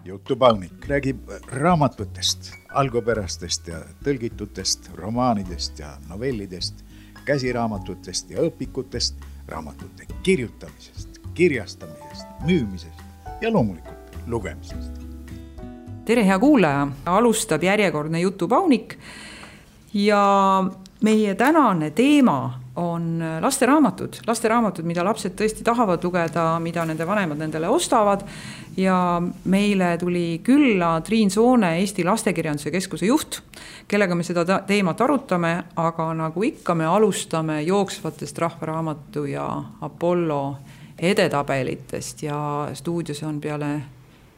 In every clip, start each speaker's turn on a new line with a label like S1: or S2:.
S1: Jutupaunik räägib raamatutest, algupärastest ja tõlgitutest, romaanidest ja novellidest, käsiraamatutest ja õpikutest, raamatute kirjutamisest, kirjastamisest, müümisest ja loomulikult lugemisest.
S2: Tere, hea kuulaja! Alustab järjekordne Jutupaunik ja meie tänane teema on lasteraamatud, mida lapsed tõesti tahavad lugeda, mida nende vanemad nendele ostavad. Ja meile tuli külla Triin Soone, Eesti Lastekirjanduse Keskuse juht, kellega me seda teemat arutame, aga nagu ikka me alustame jooksvatest Rahvaraamatu ja Apollo edetabelitest ja stuudios on peale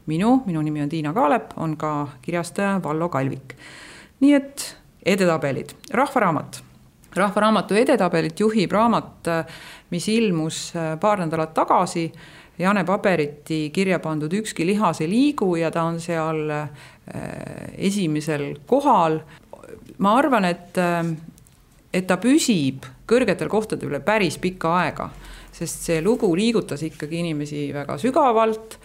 S2: minu nimi on Tiina Kaalep, on ka kirjastaja Vallo Kalvik. Nii et edetabelid, Rahvaraamatu edetabelit juhib raamat, mis ilmus paar nädalat tagasi, Jane Paberiti kirja pandud Ükski lihas ei liigu ja ta on seal esimesel kohal. Ma arvan, et ta püsib kõrgetel kohtadel päris pikka aega, sest see lugu liigutas ikkagi inimesi väga sügavalt,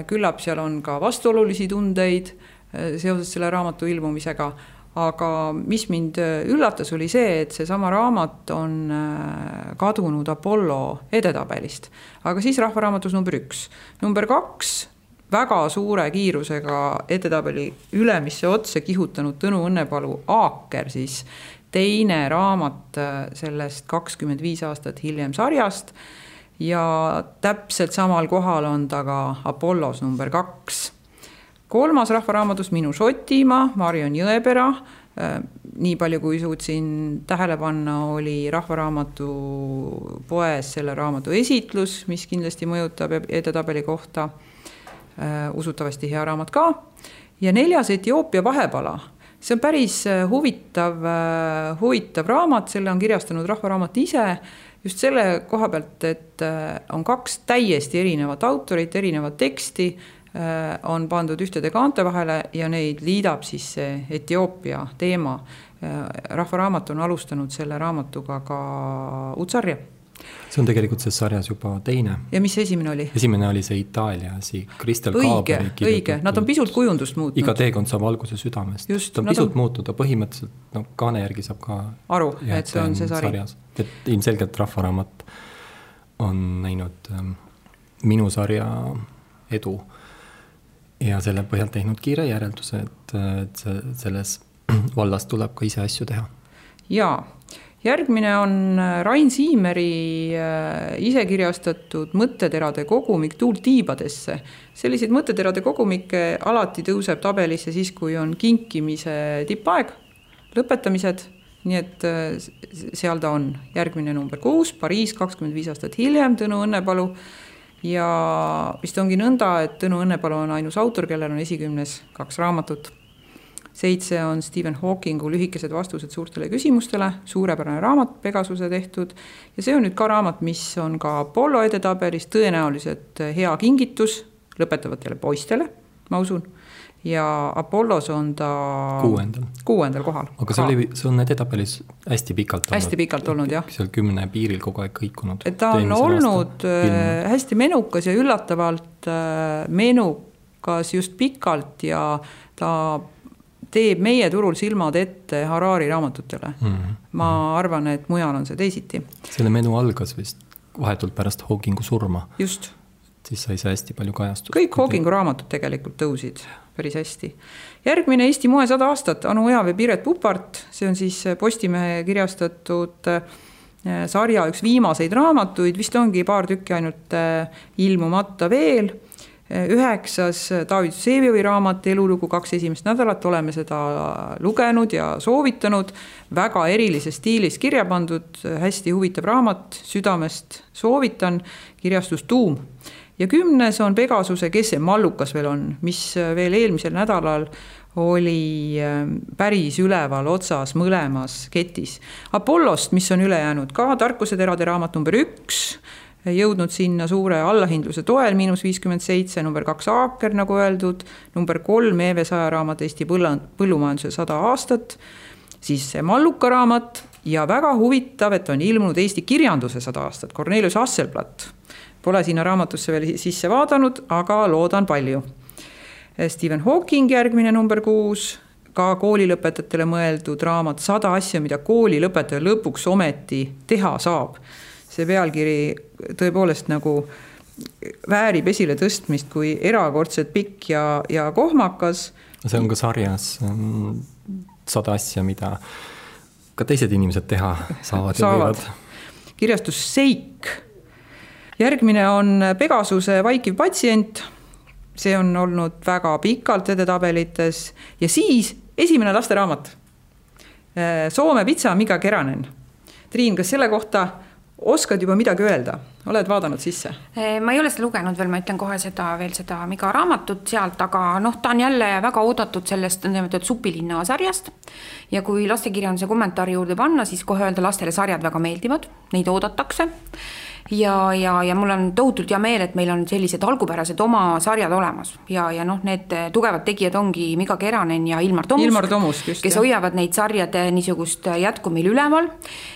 S2: küllap seal on ka vastuolulisi tundeid seoses selle raamatu ilmumisega. Aga mis mind üllatas oli see, et see sama raamat on kadunud Apollo edetabelist. Aga siis Rahvaraamatus number 1. Number 2, väga suure kiirusega edetabeli ülemisse otse kihutanud Tõnu Õnnepalu Aaker, siis teine raamat sellest 25 aastat hiljem sarjast ja täpselt samal kohal on ta ka Apollos number 2. Kolmas Rahvaraamatus Minu Šotimaa, Marion Jõepera. Nii palju kui suutsin tähele panna, oli Rahvaraamatu poes selle raamatu esitlus, mis kindlasti mõjutab edetabeli kohta. Usutavasti hea raamat ka. Ja 4. Etioopia vahepala. See on päris huvitav raamat, selle on kirjastanud Rahvaraamat ise. Just selle koha pealt, et on 2 täiesti erinevat autorit, erinevat teksti, on pandud ühtede kaante vahele ja neid liidab siis see Etioopia teema. Rahvaraamat on alustanud selle raamatuga ka uudsarja.
S3: See on tegelikult see sarjas juba teine.
S2: Ja mis esimene oli?
S3: Esimene oli see Itaalia, Kristel Kaaberi kirjutatud.
S2: Õige, nad on pisut kujundust muutnud.
S3: Iga teekond saab alguse südamest.
S2: Just,
S3: ta on pisut muutuda, põhimõtteliselt kaane järgi saab ka
S2: aru, et see on see sari.
S3: Et ilmselgelt Rahvaraamat on näinud minu sarja edu ja selle põhjalt teinud kiire järelduse, et selles vallas tuleb ka ise asju teha.
S2: Jaa, järgmine on Rain Siimeri ise kirjastatud mõtteterade kogumik Tuult tiibadesse. Selliseid mõtteterade kogumikke alati tõuseb tabelisse siis, kui on kinkimise tippaeg, lõpetamised, nii et seal ta on. Järgmine number 6, Pariis 25 aastat hiljem, Tõnu Õnnepalu. Ja vist ongi nõnda, et Tõnu Õnnepalu on ainus autor, kellel on esikümnes 2 raamatut. 7 on Stephen Hawkingu Lühikesed vastused suurtele küsimustele, suurepärane raamat, Pegasuse tehtud. Ja see on nüüd ka raamat, mis on ka Apollo edetabelis, tõenäoliselt hea kingitus lõpetavatele poistele, ma usun. Ja Apollos on ta 6. kohal.
S3: Aga see on edetabelis hästi pikalt olnud.
S2: Hästi pikalt olnud, jah.
S3: Seal 10 piiril kogu aeg kõikunud.
S2: Et ta on olnud hästi menukas ja üllatavalt menukas just pikalt ja ta teeb meie turul silmad ette Harari raamatutele. Ma arvan, et mujal on see teisiti.
S3: Selle menu algas vist vahetult pärast Hawkingu surma.
S2: Just.
S3: Siis sai see hästi palju kajastust.
S2: Kõik Hawkingu raamatud tegelikult tõusid päris hästi. Järgmine Eesti moe 100 aastat, Anu Oja või Piret Pupart, see on siis Postimehe kirjastatud sarja üks viimaseid raamatuid, vist ongi paar tükki ainult ilmumata veel. 9. David Vsevioi raamat Elulugu 2 esimest nädalat, oleme seda lugenud ja soovitanud, väga erilises stiilis kirja pandud, hästi huvitav raamat, südamest soovitan, kirjastus Tuum. Ja 10. on Pegasuse Kes see mallukas veel on, mis veel eelmisel nädalal oli päris üleval otsas mõlemas ketis. Apollost, mis on üle jäänud ka, Tarkuseterade raamat number 1, jõudnud sinna suure allahindluse toel, -57, number 2 Aaker, nagu öeldud, number 3 Eeve Saja raamat Eesti põllumajanduse 100 aastat, siis see malluka raamat ja väga huvitav, et on ilmunud Eesti kirjanduse 100 aastat, Cornelius Hasselblatt. Pole sinna raamatusse veel sisse vaadanud, aga loodan palju. Stephen Hawking järgmine number 6, ka koolilõpetajatele mõeldud raamat 100 asja, mida koolilõpetaja lõpuks ometi teha saab. See pealkiri tõepoolest nagu väärib esile tõstmist kui erakordselt pikk ja kohmakas.
S3: See on ka sarjas 100 asja, mida ka teised inimesed teha saavad. Ja võivad.
S2: Kirjastus Seik. Järgmine on Pegasuse vaikiv patsient. See on olnud väga pikalt edetabelites. Ja siis esimene lasteraamat. Soome pitsa Mika Keränen. Triin, kas selle kohta oskad juba midagi öelda? Oled vaadanud sisse?
S4: Ma ei ole seda lugenud veel, ma ütlen kohe seda Mika raamatut sealt, aga ta on jälle väga oodatud sellest Supilinna sarjast. Ja kui lastekirjanduse kommentaari juurde panna, siis kohe öelda lastele sarjad väga meeldivad, neid oodatakse. Ja mul on tohutult hea meel, et meil on sellised algupärased oma sarjad olemas ja need tugevad tegijad ongi Mika Keränen ja Ilmar Tomusk, kes hoiavad neid sarjade niisugust jätku meil üleval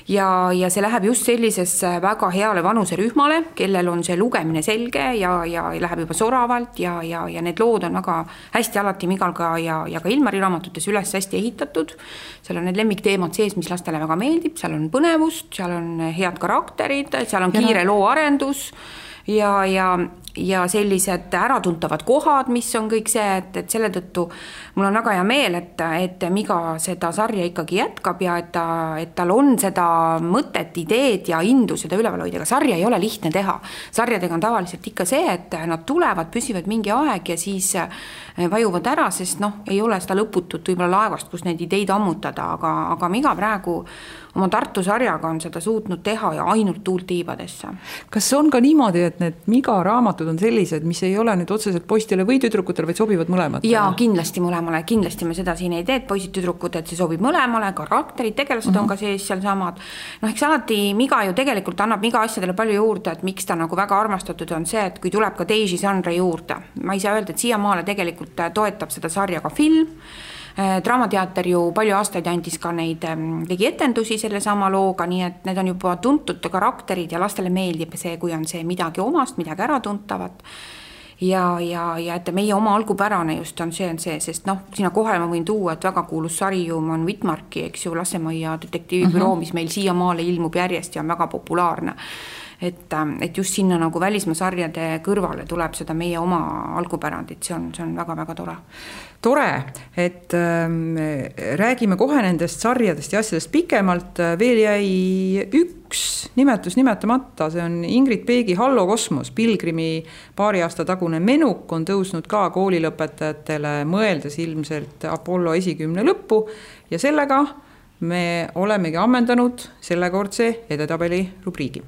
S4: ja see läheb just sellisesse väga heale vanuserühmale, kellel on see lugemine selge ja läheb juba soravalt ja need lood on väga hästi alati Migalga ja ka Ilmari raamatutes üles hästi ehitatud. Seal on need lemmikteemad sees, mis lastele väga meeldib, seal on põnevust, seal on head karakterid, seal on kiire looarendus ja sellised äratuntavad kohad, mis on kõik see, et selle tõttu mul on väga hea meel, et Miga seda sarja ikkagi jätkab ja et tal on seda mõtet, ideed ja indu seda üleval hoida, aga sarja ei ole lihtne teha. Sarjadega on tavaliselt ikka see, et nad tulevad, püsivad mingi aeg ja siis vajuvad ära, sest ei ole seda lõputut võib-olla laevast, kus neid ideid ammutada, aga Miga praegu oma Tartu sarjaga on seda suutnud teha ja ainult tuult tiibadesse.
S2: Kas on ka niimoodi, et need Miga raamatud on sellised, mis ei ole nüüd otseselt poistele või tüdrukutele, vaid sobivad mõlemad?
S4: Jaa, kindlasti mõlemale. Kindlasti me seda siin ei tee, et poisid tüdrukud, et see sobib mõlemale, karakterid, tegelased on ka sees seal samad. Eks alati Miga ju tegelikult annab Miga asjadele palju juurde, et miks ta nagu väga armastatud on see, et kui tuleb ka teisi žanre juurde. Ma ei saa öelda, et siiamaale tegelikult toetab seda sarja ka film. Draamateater ju palju aastaid andis ka neid, tegi etendusi selle sama looga, nii et need on juba tuntud karakterid ja lastele meeldib see, kui on see midagi omast, midagi ära tuntavat. Ja et meie oma algupärane just on see, sest sinna kohe ma võin tuua, et väga kuulus sarium on Wittmarki, eks ju, Lasemaia detektiivibüroo, mis meil siiamaale ilmub järjest ja on väga populaarne. Et just sinna nagu välismaa sarjade kõrvale tuleb seda meie oma algupärandit, see on väga-väga tore.
S2: Tore, et räägime kohe nendest sarjadest ja asjadest pikemalt. Veel jäi üks nimetus nimetamata, see on Ingrid Peegi Hallo kosmos. Pilgrimi paari aasta tagune menuk on tõusnud ka koolilõpetajatele, mõeldes ilmselt Apollo esikümne lõppu ja sellega me olemegi ammendanud sellekordse edetabeli rubriigi.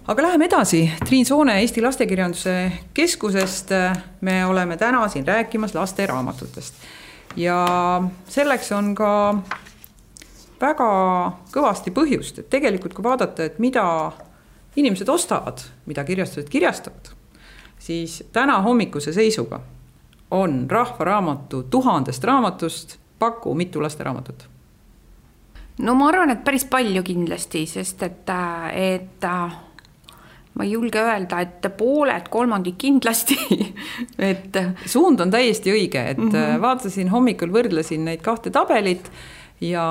S2: Aga läheme edasi. Triin Soone Eesti Lastekirjanduse Keskusest. Me oleme täna siin rääkimas laste raamatutest. Ja selleks on ka väga kõvasti põhjust, et tegelikult kui vaadata, et mida inimesed ostavad, mida kirjastused kirjastavad, siis täna hommikuse seisuga on Rahvaraamatu 1000 raamatust paku mitu lasteraamatut?
S4: No ma arvan, et päris palju kindlasti, sest et ma ei julge öelda, et pooled, kolmandik kindlasti. Et
S2: suund on täiesti õige, et vaatasin hommikul, võrdlesin neid kahte tabelit ja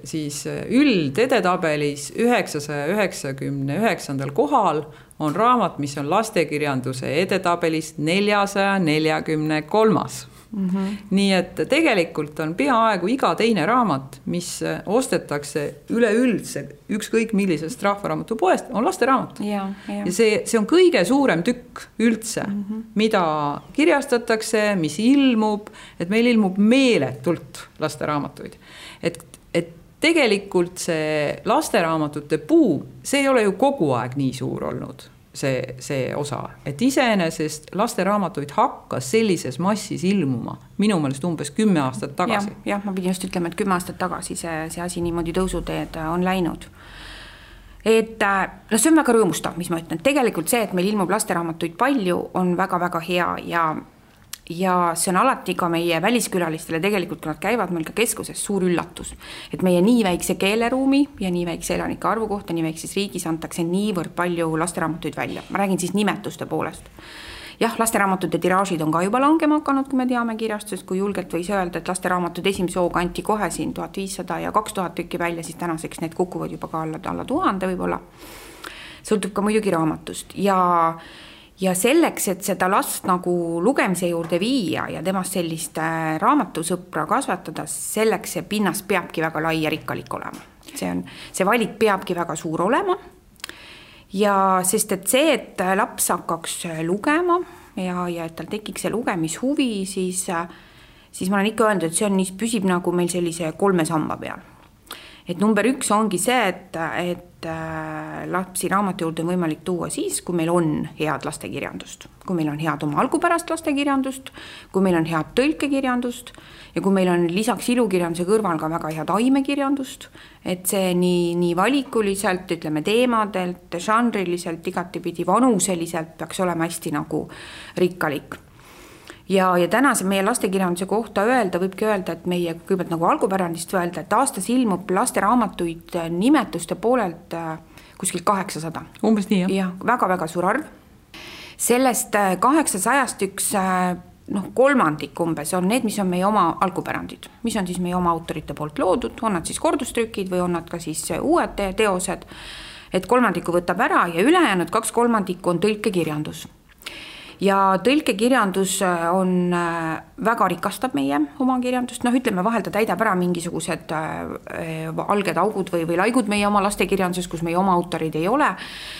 S2: siis üldedetabelis 999. kohal on raamat, mis on lastekirjanduse edetabelis 443. Nii et tegelikult on peaaegu iga teine raamat, mis ostetakse üleüldse ükskõik millisest rahvaraamatu poest, on lasteraamat. Ja see on kõige suurem tükk üldse, mida kirjastatakse, mis ilmub, et meil ilmub meeletult lasteraamatuid. Et tegelikult see lasteraamatute buum, see ei ole ju kogu aeg nii suur olnud. See osa, et iseenesest lasteraamatuid hakkas sellises massis ilmuma minu meelest umbes 10 aastat tagasi.
S4: Jah, ma pidin just ütlema, et 10 aastat tagasi see asi niimoodi tõusuteed on läinud. Et see on väga rõõmustav, mis ma ütlen. Tegelikult see, et meil ilmub lasteraamatuid palju, on väga-väga hea ja see on alati ka meie väliskülalistele tegelikult, kui nad käivad meil ka keskuses, suur üllatus. Et meie nii väikse keeleruumi ja nii väikse elanike arvu kohta, nii väikses riigis antakse niivõrd palju lasteraamatuid välja. Ma räägin siis nimetuste poolest. Jah, lasteraamatute tiraažid on ka juba langema hakanud, kui me teame kirjastusest, kui julgelt võis öelda, et lasteraamatud esimese hooga anti kohe siin 1500 ja 2000 tükki välja, siis tänaseks need kukuvad juba ka alla 1000 võib-olla. Sõltub ka muidugi raamatust ja selleks, et seda last nagu lugemise juurde viia ja temast sellist raamatusõpra kasvatada, selleks see pinnas peabki väga lai ja rikkalik olema. See valik peabki väga suur olema. Ja sest et see, et laps hakkaks lugema ja et tal tekiks see lugemishuvi, siis ma olen ikka öelnud, et see on, püsib nagu meil sellise 3 samba peal. Et number 1 ongi see, et lapsi raamatu juurde on võimalik tuua siis, kui meil on head lastekirjandust, kui meil on head oma algupärast lastekirjandust, kui meil on head tõlkekirjandust ja kui meil on lisaks ilukirjanduse kõrval ka väga head aimekirjandust, et see nii valikuliselt, ütleme teemadelt, žanriliselt, igatipidi vanuseliselt peaks olema hästi nagu rikkalik. Ja tänase meie lastekirjanduse kohta võibki öelda, et meie kõigepealt nagu algupärandist öelda, et aastas ilmub lasteraamatuid nimetuste poolelt kuskil 800.
S2: Umbes nii, jah?
S4: Ja väga-väga suur arv. Sellest 800 üks kolmandik umbes on need, mis on meie oma algupärandid, mis on siis meie oma autorite poolt loodud, on nad siis kordustrükid või on nad ka siis uued teosed, et kolmandiku võtab ära ja ülejäänud 2/3 on tõlkekirjandus. Ja tõlkekirjandus on väga rikastab meie oma kirjandust, ütleme vahel ta täidab ära mingisugused alged augud või laigud meie oma lastekirjanduses, kus meie oma autorid ei ole,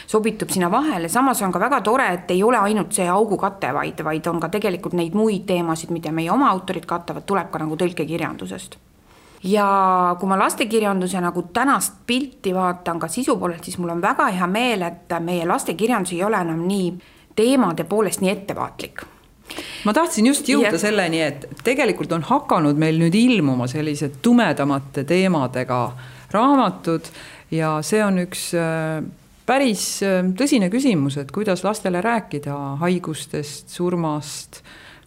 S4: sobitub sinna vahele, samas on ka väga tore, et ei ole ainult see augukate, vaid on ka tegelikult neid muid teemasid, mida meie oma autorid katavad, tuleb ka nagu tõlkekirjandusest. Ja kui ma lastekirjanduse nagu tänast pilti vaatan ka sisu poolelt, siis mul on väga hea meel, et meie lastekirjandus ei ole enam nii teemade poolest nii ettevaatlik.
S2: Ma tahtsin just jõuda selleni, et tegelikult on hakanud meil nüüd ilmuma sellised tumedamate teemadega raamatud ja see on üks päris tõsine küsimus, et kuidas lastele rääkida haigustest, surmast,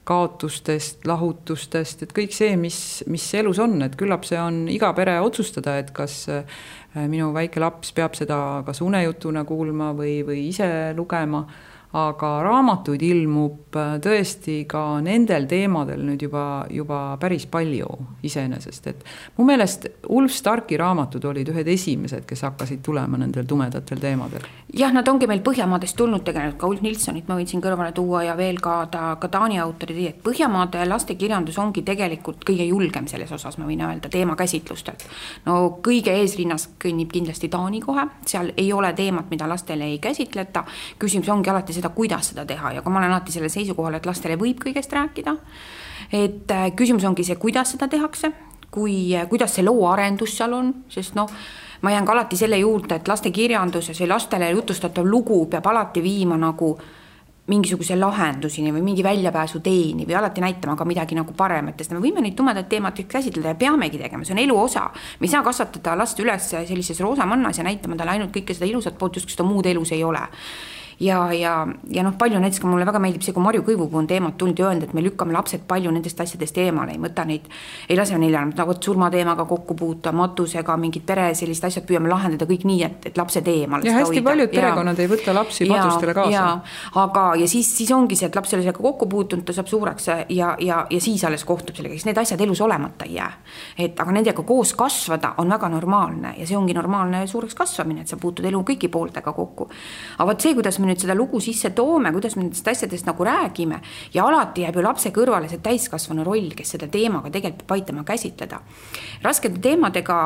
S2: kaotustest, lahutustest, et kõik see, mis elus on, et küllap see on iga pere otsustada, et kas minu väike laps peab seda kas unejutuna kuulma või ise lugema, aga raamatuid ilmub tõesti ka nendel teemadel nüüd juba päris palju iseenesest, et mu meelest Ulf Starki raamatud olid ühed esimesed, kes hakkasid tulema nendel tumedatel teemadel.
S4: Jah, nad ongi meil Põhjamaadest tulnud tegelikult, ka Ulf Nilssonit ma võin siin kõrvale tuua ja veel ka Taani autorid, et Põhjamaade lastekirjandus ongi tegelikult kõige julgem selles osas, ma võin öelda, teemakäsitlustelt. No kõige eesrinnas kõnnib kindlasti Taani kohe, seal ei ole teemat, mida lastele ei käsitleta, küsimus ongi alati seda, kuidas seda teha ja kui ma olen alati selle seisukohal, et lastele võib kõigest rääkida, et küsimus ongi see, kuidas seda tehakse, kuidas see loo arendus seal on, sest ma jään ka alati selle juurde, et lastekirjanduses või lastele jutustatav lugu peab alati viima nagu mingisuguse lahendusini või mingi väljapääsu teeni või alati näitama ka midagi nagu parematest. Me võime neid tumedaid teemasid käsitleda ja peamegi tegema, see on elu osa. Me ei saa kasvatada last üles sellises roosamannas ja näitama talle ainult kõike seda ilusat poolt, just seda muud elus ei ole. Ja palju näiteks ka mulle väga meeldib see, kui Marju Kõivupuu on teemat tulnud ja öelnud, et me lükkame lapsed palju nendest asjadest eemale, ei mõta neid, ei lase neil nagu surmateemaga kokku puuta, matusega, mingid pere sellist asjad püüame lahendada kõik nii, et lapsed eemale.
S2: Ja hästi paljud perekonnad ei võta lapsi matustele kaasa.
S4: Ja siis ongi see, et laps sellega kokku puutunud, ta saab suureks ja siis alles kohtub sellega, siis need asjad elus olemata ei jää. Aga nendega koos kasvada on väga normaalne ja see ongi normaalne suureks kasvamine, et sa puutud elu kõigi pooltega kokku. Aga see, kuidas me nüüd seda lugu sisse toome, kuidas me nendest asjadest nagu räägime ja alati jääb ju lapse kõrvale see täiskasvanu roll, kes seda teemaga tegelikult peab aitama käsitleda. Raskete teemadega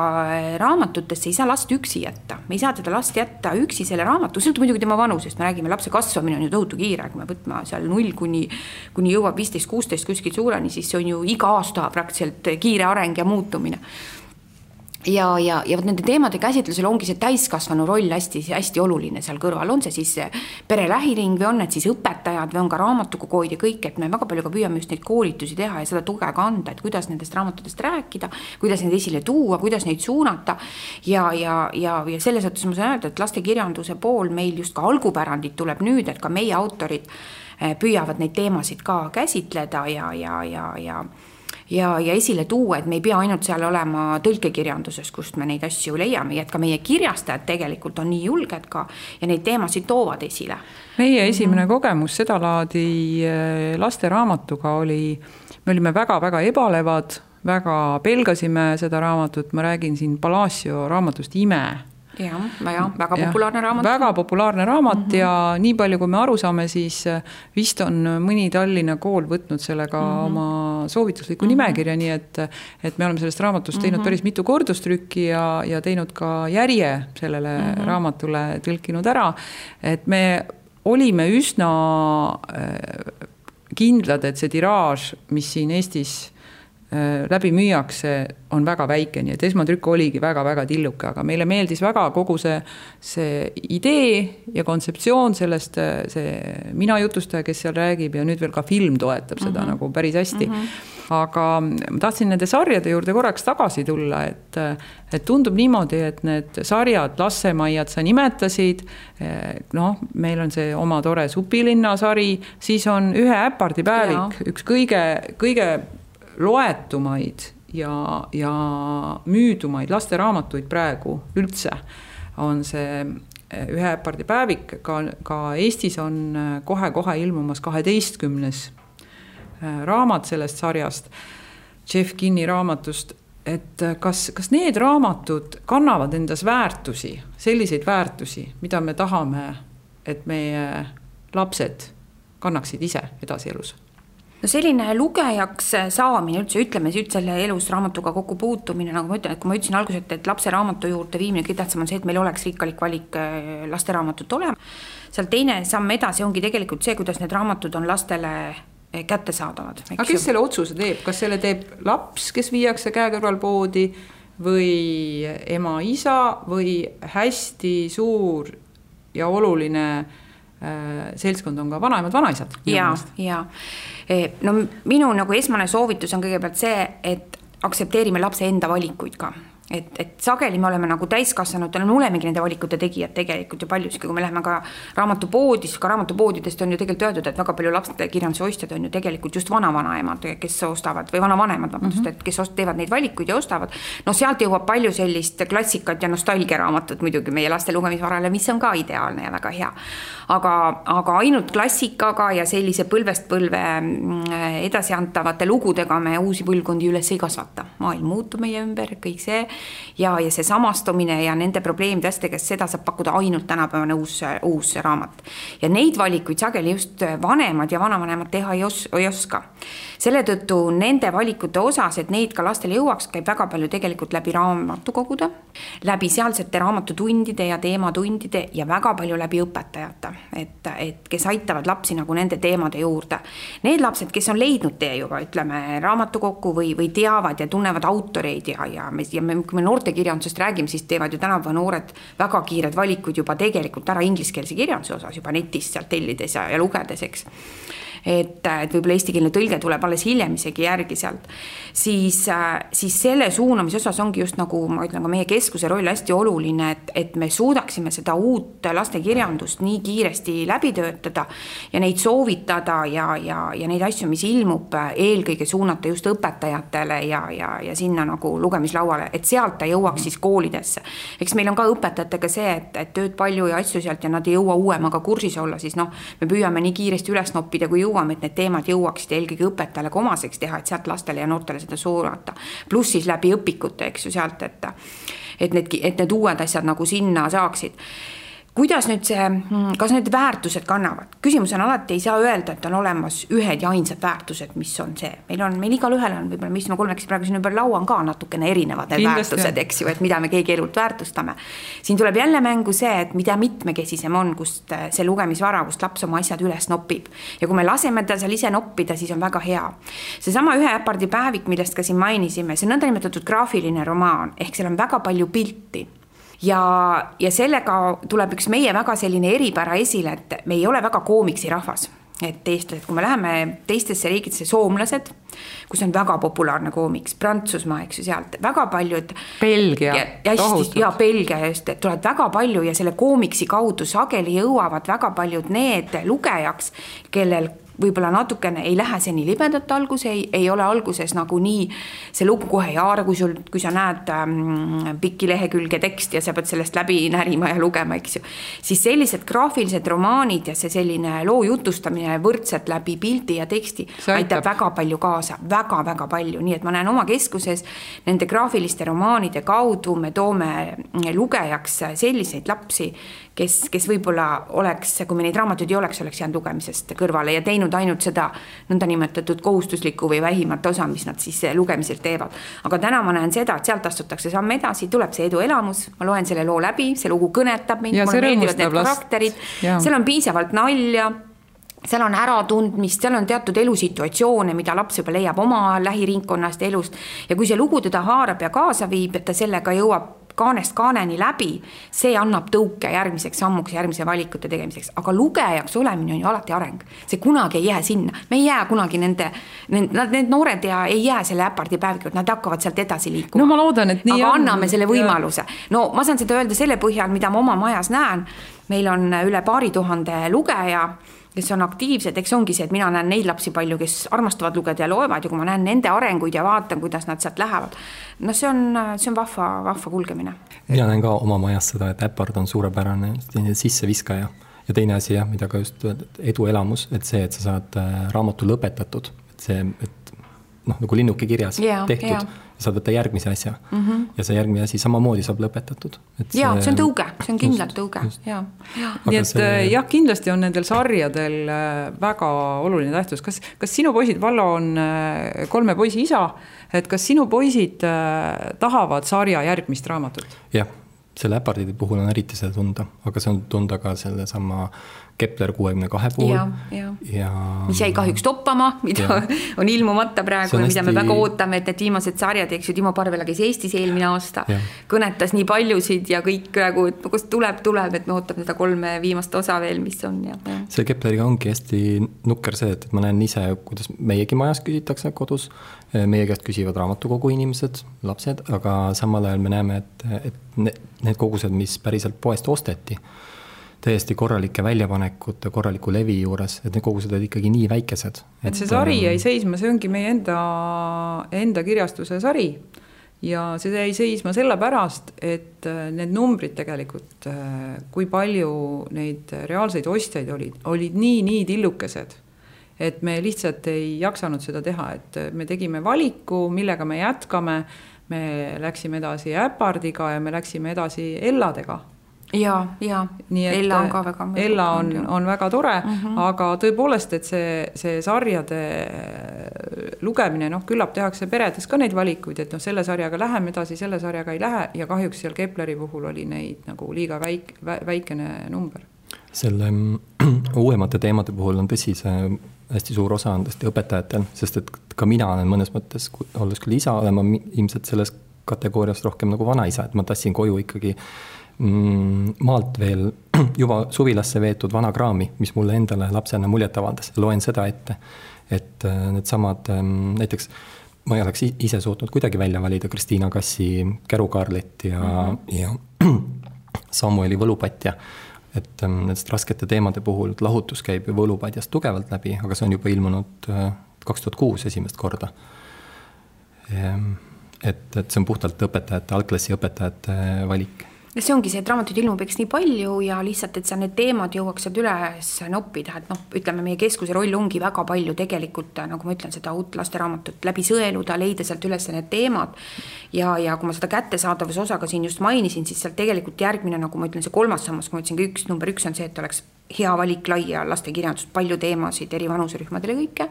S4: raamatutesse ei saa last üksi jätta. Me ei saa teda last jätta üksi selle raamatu, sõltub muidugi tema vanusest, me räägime, lapse kasvamine on ju tohutu kiire, kui me võtma seal 0 kuni jõuab 15-16 kuskil suureni, siis see on ju iga aasta praktiliselt kiire areng ja muutumine. Ja nende teemade käsitlusel ongi see täiskasvanu roll hästi oluline seal kõrval. On see siis pere lähiring või on need siis õpetajad või on ka raamatukoguid ja kõik, et me väga palju ka püüame just neid koolitusi teha ja seda tuge ka anda, et kuidas nendest raamatutest rääkida, kuidas neid esile tuua, kuidas neid suunata ja selles mõttes ma saan öelda, et lastekirjanduse pool meil just ka algupärandid tuleb nüüd, et ka meie autorid püüavad neid teemasid ka käsitleda ja esile tuua, et me ei pea ainult seal olema tõlkekirjanduses, kust me neid asju leiame, et ka meie kirjastajad tegelikult on nii julged ka ja neid teemasid toovad esile.
S2: Meie esimene kogemus seda laadi lasteraamatuga oli, me olime väga-väga ebalevad, väga pelgasime seda raamatut, ma räägin siin Palacio raamatust Ime.
S4: Väga populaarne raamat.
S2: Väga populaarne raamat ja nii palju, kui me aru saame, siis vist on mõni Tallinna kool võtnud sellega oma soovitusliku nimekirja, nii et me oleme sellest raamatust teinud päris mitu kordustrükki ja teinud ka järje sellele raamatule tõlkinud ära, et me olime üsna kindlad, et see tiraaž, mis siin Eestis läbi müüakse, on väga väike, nii et esmatrükk oligi väga-väga tilluke, aga meile meeldis väga kogu see idee ja kontseptsioon sellest, see mina jutustaja, kes seal räägib ja nüüd veel ka film toetab seda nagu päris hästi. Aga ma tahtsin nende sarjade juurde korraks tagasi tulla, et tundub niimoodi, et need sarjad, Lassemaiad sa nimetasid, meil on see oma tore Supilinna sari, siis on Ühe äpardi päevik, üks kõige loetumaid ja müüdumaid lasteraamatuid praegu üldse on see Ühe äpardi päevik, ka Eestis on kohe ilmumas 12. raamat sellest sarjast, Jeff Kinni raamatust, et kas need raamatud kannavad endas väärtusi, selliseid väärtusi, mida me tahame, et meie lapsed kannaksid ise edasi elus?
S4: No selline lugejaks saamine üldse, ütleme selle elus raamatuga kokku puutumine, nagu ma ütlen, et kui ma ütlesin alguses, et lapse raamatu juurde viimine kõige tähtsam on see, et meil oleks rikkalik valik lasteraamatut olema. Seal teine samm edasi ongi tegelikult see, kuidas need raamatud on lastele kättesaadavad.
S2: Aga kes selle otsuse teeb? Kas selle teeb laps, kes viiakse käe kõrval poodi või ema, isa või hästi suur ja oluline seltskond on ka vanaemad, vanaisad?
S4: Ja. No minu nagu esmane soovitus on kõigepealt see, et aksepteerime lapse enda valikuid ka. Et sageli me oleme nagu täiskassanutena, me olemegi nende valikute tegijad tegelikult ju paljuski, kui me läheme ka raamatupoodist, ka raamatupoodidest on ju tegelikult öeldud, et väga palju lapsekirjanduse ostjad on ju tegelikult just vanavanemad, kes ostavad, või vanavanemad, et kes teevad neid valikuid ja ostavad. No sealt jõuab palju sellist klassikat ja nostalgiaraamatut muidugi meie laste lugemisvarale, mis on ka ideaalne ja väga hea. Aga ainult klassikaga ja sellise põlvest põlve edasi antavate lugudega me uusi põlvkondi üles ei kasvata. Maailm muutub meie ümber, kõik see ja see samastumine ja nende probleemidest, seda saab pakkuda ainult tänapäevane uus raamat. Ja neid valikuid sageli just vanemad ja vanavanemad teha ei oska. Selle tõttu nende valikute osas, et neid ka lastele jõuaks, käib väga palju tegelikult läbi raamatukogude, läbi sealsete raamatutundide ja teematundide ja väga palju läbi õpetajate, et kes aitavad lapsi nagu nende teemade juurde. Need lapsed, kes on leidnud tee juba, ütleme, raamatukokku või teavad ja tunnevad autoreid ja kui me noortekirjandusest räägime, siis teevad ju tänapäeva noored väga kiired valikud juba tegelikult ära ingliskeelse kirjanduse osas juba netist sealt tellides ja lugedes, eks. Et võib-olla eestikeelne tõlge tuleb alles hiljem isegi järgi sealt, siis selle suunamise osas ongi just nagu, ma ütlen ka meie keskuse roll hästi oluline, et me suudaksime seda uut lastekirjandust nii kiiresti läbi töötada ja neid soovitada ja neid asju, mis ilmub, eelkõige suunata just õpetajatele ja sinna nagu lugemislauale, et sealt ta jõuaks siis koolidesse. Eks meil on ka õpetajatega see, et tööd palju ja asju sealt ja nad ei jõua uuemaga kursis olla, siis me püüame nii kiiresti üles noppida, kui et need teemad jõuaksid eelkõige õpetajale omaseks teha, et sealt lastele ja noortele seda suunata. Pluss siis läbi õpikute, eks ju sealt, et need uued asjad nagu sinna saaksid. Kuidas nüüd kas need väärtused kannavad? Küsimus on alati, ei saa öelda, et on olemas ühed ja ainsad väärtused, mis on see. Meil igal ühel on, võib-olla mis me kolmekesi praegu siin ümber laua on ka natukene erinevad väärtused, eks ju, et mida me keegi elult väärtustame. Siin tuleb jälle mängu see, et mida mitmekesisem on, kust see lugemisvara, kust laps oma asjad üles nopib. Ja kui me laseme ta seal ise noppida, siis on väga hea. Seesama Ühe äpardi päevik, millest ka siin mainisime, see on nõndanimetatud graafiline romaan, ehk seal on väga palju pilti. Ja sellega tuleb üks meie väga selline eripära esile, et me ei ole väga koomiksi rahvas. Et eestlased, kui me läheme teistesse riigidesse, soomlased, kus on väga populaarne koomiks, Prantsusmaa, eks ju, sealt väga paljud
S2: Belgia,
S4: tohutult. Ja Belgia just, tulevad väga palju ja selle koomiksi kaudu sageli jõuavad väga paljud need lugejaks, kellel võib-olla natukene ei lähe see nii libedalt algus, ei ole alguses nagu nii see lugu kohe ei haara, kui sa näed pikki lehekülge teksti ja sa pead sellest läbi närima ja lugema, eks ju. Siis sellised graafilised romaanid ja see selline loo jutustamine võrdselt läbi pildi ja teksti aitab väga palju kaasa, väga-väga palju. Nii et ma näen oma keskuses nende graafiliste romaanide kaudu me toome lugejaks selliseid lapsi, kes võib-olla oleks, kui me neid raamatuid ei oleks jäänud lugemisest kõrvale ja teinud ainult seda nõnda nimetatud kohustuslikku või vähimat osa, mis nad siis lugemiselt teevad. Aga täna ma näen seda, et sealt astutakse samm edasi, tuleb see eduelamus, ma loen selle loo läbi, see lugu kõnetab mind, mulle meeldivad need karakterid, seal on piisavalt nalja, seal on äratundmist, seal on teatud elusituatsioone, mida laps juba leiab oma lähiringkonnast elust ja kui see lugu teda haarab ja kaasa viib, et ta sellega jõuab kaanest kaaneni läbi, see annab tõuke järgmiseks sammuks, järgmise valikute tegemiseks. Aga lugejaks olemine on ju alati areng. See kunagi ei jää sinna. Me ei jää kunagi need noored ja ei jää selle äpardi päevikud, nad hakkavad sealt edasi liikuma.
S2: No ma loodan, et nii
S4: aga anname selle võimaluse. No ma saan seda öelda selle põhjal, mida ma oma majas näen. Meil on üle 2000 lugeja, kes on aktiivsed, eks ongi see, et mina näen neid lapsi palju, kes armastavad lugeda ja loevad ja kui ma näen nende arenguid ja vaatan, kuidas nad sealt lähevad, no see on vahva kulgemine.
S3: Mina näen ka oma majas seda, et äpard on suurepärane sisseviskaja ja teine asi, mida ka just eduelamus, et see, et sa saad raamatu lõpetatud, et see, et nagu linnuke kirjas tehtud, saad võtta järgmise asja ja see järgmine asi samamoodi saab lõpetatud.
S4: See on tõuge, see on kindlalt tõuge.
S2: Nii et jah, kindlasti on nendel sarjadel väga oluline tähtsus. Kas sinu poisid, Vallo on 3 poisi isa, et kas sinu poisid tahavad sarja järgmist raamatut?
S3: Jah, selle äpardide puhul on eriti seda tunda, aga see on tunda ka selle sama Kepler 62 puhul.
S4: Ja mis jäi kahjuks toppama, mida on ilmumata praegu ja mida me väga ootame, et need viimased sarjad, eks ju, Timo Parvela käis Eestis eelmine aasta, kõnetas nii paljusid ja kõik praegu, et kus tuleb, et me ootame seda 3 viimast osa veel, mis on.
S3: See Kepleriga ongi hästi nukker see, et ma näen ise, kuidas meiegi majas küsitakse kodus, meie käest küsivad raamatukogu inimesed, lapsed, aga samal ajal me näeme, et need kogused, mis päriselt poest osteti, täiesti korralike väljapanekute, korraliku levi juures, et need kogused olid ikkagi nii väikesed.
S2: Et see sari jäi seisma, see ongi meie enda kirjastuse sari ja see jäi seisma selle pärast, et need numbrid tegelikult, kui palju neid reaalseid ostjaid olid nii tillukesed, et me lihtsalt ei jaksanud seda teha, et me tegime valiku, millega me jätkame, me läksime edasi äpardiga ja me läksime edasi Elladega.
S4: Ja Ella on ka väga
S2: Ella on väga tore, aga tõepoolest, et see sarjade lugemine, küllap tehakse peredes ka neid valikuid, et selle sarjaga läheme edasi, selle sarjaga ei lähe ja kahjuks seal Kepleri puhul oli neid nagu liiga väikene number.
S3: Selle uuemate teemade puhul on tõsi, see hästi suur osa on tõesti õpetajatel, sest et ka mina olen mõnes mõttes, olles küll isa, olema ilmselt selles kategoorias rohkem nagu vanaisa, et ma tassin koju ikkagi maalt veel juba suvilasse veetud vana kraami, mis mulle endale lapsena muljet avaldas. Loen seda ette, et need samad, näiteks ma ei oleks ise suutnud kuidagi välja valida Kristiina Kassi Kärukaarlit ja Samueli Võlupatja. Et nendest raskete teemade puhul lahutus käib Võlupatjast tugevalt läbi, aga see on juba ilmunud 2006 esimest korda. Et see on puhtalt õpetajate, algklassi õpetajate valik.
S4: See ongi see, et raamatuid ilmub eks nii palju ja lihtsalt, et sa need teemad jõuaksid üles noppida, et ütleme, meie keskuse roll ongi väga palju tegelikult, nagu ma ütlen, seda uut lasteraamatut läbi sõeluda, leida sealt üles need teemad ja kui ma seda kättesaadavuse osaga siin just mainisin, siis sealt tegelikult järgmine, nagu ma ütlen, see 3. sammas, kui ma ütlesin, number 1 on see, et oleks hea valik laia lastekirjandust, palju teemasid eri vanuserühmadele kõike.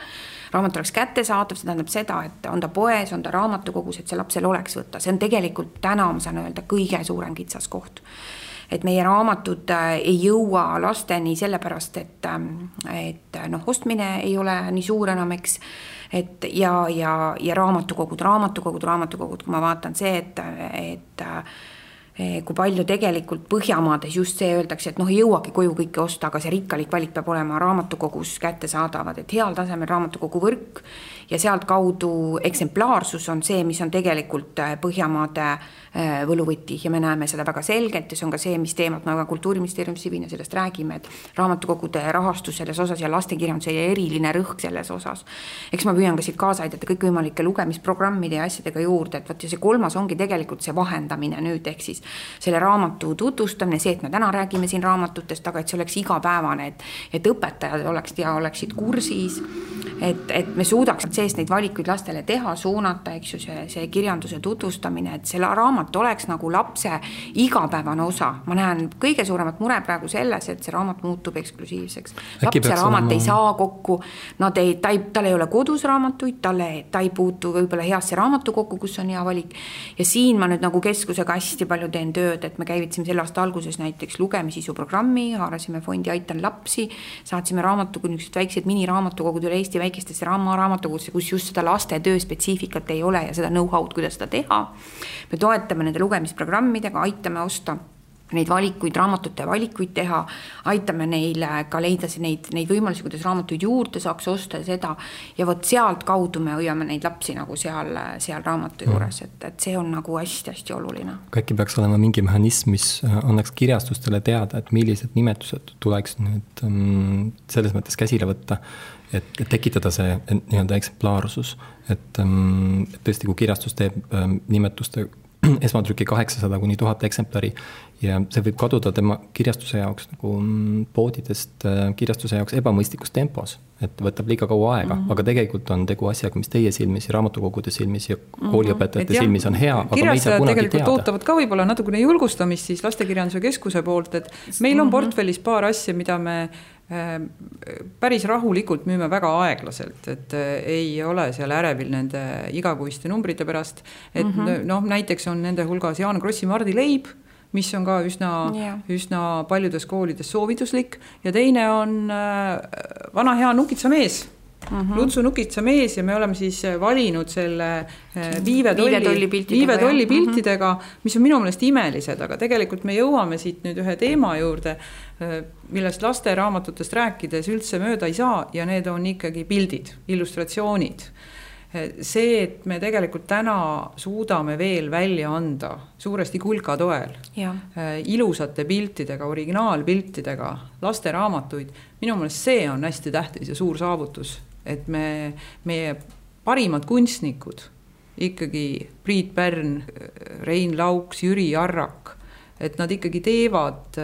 S4: Raamat oleks kättesaadav, see tähendab seda, et on ta poes, on ta raamatukogus, et see lapsel oleks võtta. See on tegelikult täna, ma saan öelda, kõige suurem kitsas koht. Et meie raamatud ei jõua lasteni sellepärast, et ostmine ei ole nii suur enam, eks. Ja raamatukogud, kui ma vaatan see, et kui palju tegelikult Põhjamaades just see öeldakse, et ei jõuagi koju kõike osta, aga see rikkalik valik peab olema raamatukogus kättesaadavad, et heal tasemel raamatukogu võrk ja sealt kaudu eksemplaarsus on see, mis on tegelikult Põhjamaade võluvõti ja me näeme seda väga selgelt ja see on ka see, mis teemat me ka Kultuuriministeeriumis Sivina sellest räägime, et raamatukogude rahastus selles osas ja lastekirjanduse ja eriline rõhk selles osas. Eks ma püüan ka siit kaasa aidata kõikvõimalike lugemisprogrammide ja asjadega juurde, et võt ja see kolmas ongi tegelikult see vahendamine nüüd, ehk siis selle raamatu tutvustamine, see, et me täna räägime siin raamatutest, aga et see oleks igapäevane, et õpetajad oleksid kursis, et me suudaks seest neid valikuid lastele teha, suunata, eks ju, see kirjanduse tutvustamine, et selle raamat oleks nagu lapse igapäevane osa. Ma näen kõige suuremat mure praegu selles, et see raamat muutub eksklusiivseks. Lapse raamat ei saa kokku, tal ei ole kodus raamatuid, ta ei puutu võib-olla heasse raamatukokku, kus on hea valik. Ja siin ma nüüd nagu keskusega hästi palju teen tööd, et me käivitasime selle aasta alguses näiteks lugemisisu programmi, haarasime fondi Aitan lapsi, saatsime raamatukogud, väiksed miniraamatukogud üle Eesti väikestesse raamatukogudesse, kus just seda laste töö spetsiifikat ei ole ja seda know-how'd, kuidas seda teha. Me toetame nende lugemisprogrammidega, aitame osta neid valikuid, raamatute valikuid teha, aitame neile ka leida neid võimalusi, kuidas raamatuid juurde saaks osta seda ja võt sealt kaudu me hoiame neid lapsi nagu seal raamatu juures, et see on nagu hästi-hästi oluline.
S3: Äkki peaks olema mingi mehhanism, mis annaks kirjastustele teada, et millised nimetused tuleks nüüd selles mõttes käsile võtta, et tekitada see nii-öelda eksemplaarsus, et tõesti, kui kirjastus teeb nimetuste esmatrüki 800 kuni 1000 eksemplari ja see võib kaduda tema kirjastuse jaoks nagu poodidest kirjastuse jaoks ebamõistlikus tempos, et võtab liiga kaua aega, aga tegelikult on tegu asjaga, mis teie silmis ja raamatukogude silmis ja kooliõpetajate silmis on hea, aga me ei saa kunagi
S2: teada. Ootavad ka võib-olla natukene julgustamist siis Lastekirjanduse Keskuse poolt, et meil on portfellis paar asja, mida me päris rahulikult müüme väga aeglaselt, et ei ole seal ärevil nende igakuiste numbrite pärast, et näiteks on nende hulgas Jaan Krossi Mardi leib, mis on ka üsna paljudes koolides soovituslik ja teine on vana hea Nukitsa mees, Lutsu Nukitsa mees ja me oleme siis valinud selle viivetolli piltidega, mis on minu meelest imelised, aga tegelikult me jõuame siit nüüd ühe teema juurde, millest laste raamatutest rääkides üldse mööda ei saa ja need on ikkagi pildid, illustratsioonid. See, et me tegelikult täna suudame veel välja anda suuresti Kulka toel ilusate piltidega, originaalpiltidega laste raamatuid, minu meelest see on hästi tähtis ja suur saavutus, et meie parimad kunstnikud, ikkagi Priit Pärn, Rein Lauks, Jüri Arrak, et nad ikkagi teevad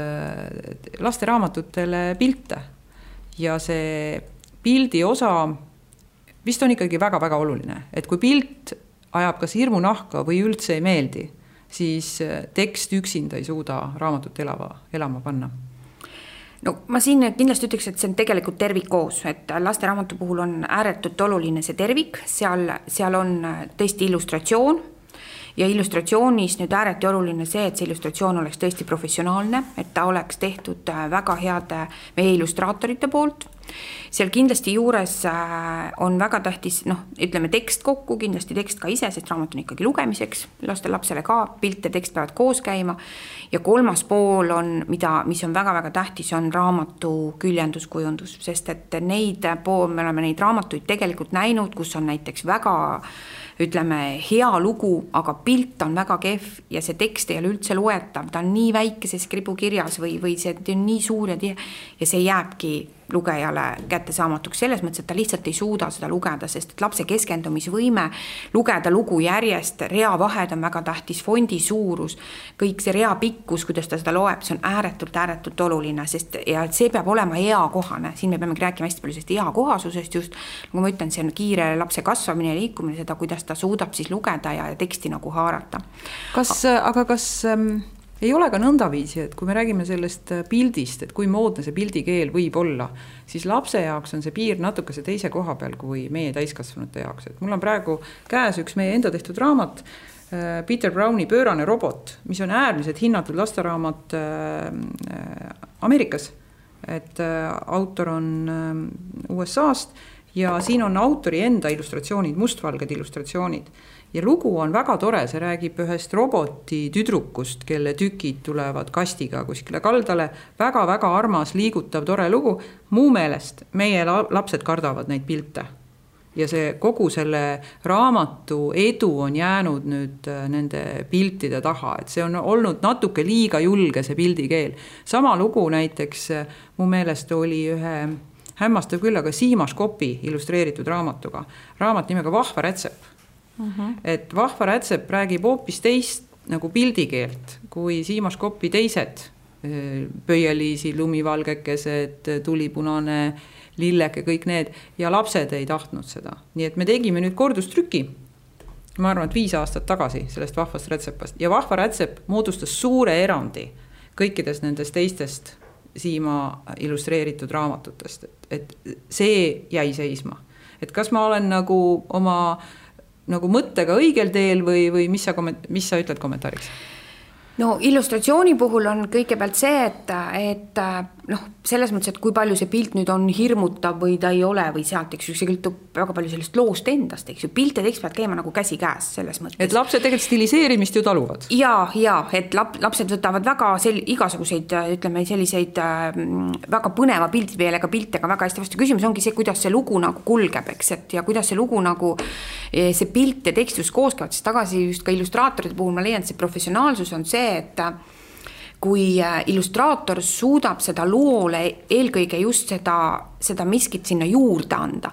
S2: laste raamatutele pilte ja see pildi osa vist on ikkagi väga-väga oluline, et kui pilt ajab kas hirmu nahka või üldse ei meeldi, siis tekst üksinda ei suuda raamatut elama panna.
S4: No ma siin kindlasti ütleks, et see on tegelikult tervik koos, et laste raamatu puhul on ääretult oluline see tervik, seal on tõesti illustratsioon ja illustratsioonis nüüd ääreti oluline see, et see illustratsioon oleks tõesti professionaalne, et ta oleks tehtud väga heade meie illustraatorite poolt. Seal kindlasti juures on väga tähtis, ütleme tekst kokku, kindlasti tekst ka ise, sest raamat on ikkagi lugemiseks, lapsele ka, pilt ja tekst peavad koos käima ja kolmas pool on, mis on väga-väga tähtis, on raamatu küljenduskujundus, sest et me oleme neid raamatuid tegelikult näinud, kus on näiteks väga ütleme hea lugu, aga pilt on väga kehv ja see tekst ei ole üldse loetav, ta on nii väikeses kribukirjas või see on nii suur ja see jääbki lugejale kättesaamatuks selles mõttes, et ta lihtsalt ei suuda seda lugeda, sest et lapse keskendumisvõime lugeda lugu järjest, reavahed on väga tähtis, fondi suurus, kõik see rea pikkus, kuidas ta seda loeb, see on ääretult oluline, ja see peab olema eakohane, siin me peamegi rääkima hästi palju sellest eakohasusest just, nagu ma ütlen, see on kiire lapse kasvamine ja liikumine, seda, kuidas ta suudab siis lugeda ja teksti nagu haarata.
S2: Kas ei ole ka nõndaviisi, et kui me räägime sellest pildist, et kui moodne see pildikeel võib olla, siis lapse jaoks on see piir natukese teise koha peal kui meie täiskasvanute jaoks. Et mul on praegu käes üks meie enda tehtud raamat, Peter Browni Pöörane robot, mis on äärmiselt hinnatud lasteraamat Ameerikas. Et autor on USA-st ja siin on autori enda illustratsioonid, mustvalged illustratsioonid. Ja lugu on väga tore, see räägib ühest roboti tüdrukust, kelle tükid tulevad kastiga kuskile kaldale. Väga-väga armas, liigutav, tore lugu. Muu meelest meie lapsed kardavad neid pilte. Ja see kogu selle raamatu edu on jäänud nüüd nende piltide taha, et see on olnud natuke liiga julge see pildikeel. Sama lugu näiteks mu meelest oli ühe hämmastav küll, aga Siimas Kopi illustreeritud raamatuga. Raamat nimega Vahva rätsep. Et Vahva rätsep räägib hoopis teist nagu pildikeelt kui Siimas Kopi teised pöieliisi, lumivalgekesed, tulipunane lilleke, kõik need, ja lapsed ei tahtnud seda. Nii et me tegime nüüd kordustrüki, ma arvan, et 5 aastat tagasi sellest Vahvast rätsepast. Ja Vahva rätsep moodustas suure erandi kõikidest nendest teistest Siima illustreeritud raamatutest. Et see jäi seisma. Et kas ma olen nagu oma nagu mõttega õigel teel või mis sa ütled kommentaariks?
S4: No illustratsiooni puhul on kõigepealt see, et selles mõttes, et kui palju see pilt nüüd on hirmutav või ta ei ole või sealt, eks ju, see kõltub väga palju sellest loost endast, eks ju, pilte tekst peavad käima nagu käsi käes selles mõttes.
S2: Et lapsed tegelikult stiliseerimist ju taluvad.
S4: Ja, et lapsed võtavad väga igasuguseid, ütleme, selliseid väga põneva pildipeelega piltega väga hästi vastu. Küsimus ongi see, kuidas see lugu nagu kulgeb, eks, et ja kuidas see lugu nagu see pilt ja tekstus koos käivad, siis tagasi just ka illustraatorite puhul ma leian, et see professionaalsus on see, et kui illustraator suudab seda loole eelkõige just seda miskit sinna juurde anda.